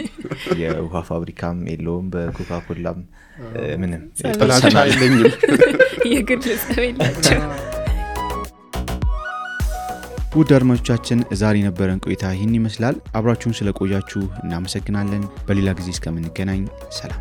S4: የውሃ ፋብሪካም የለውም፣ በኮካኮላም ምንም
S3: ጥላቻ የለኝም።
S2: የግል ጸብ የላቸው።
S1: ውድ አድማጮቻችን ዛሬ ነበረን ቆይታ ይህን ይመስላል። አብራችሁን ስለቆያችሁ እናመሰግናለን። በሌላ ጊዜ እስከምንገናኝ ሰላም።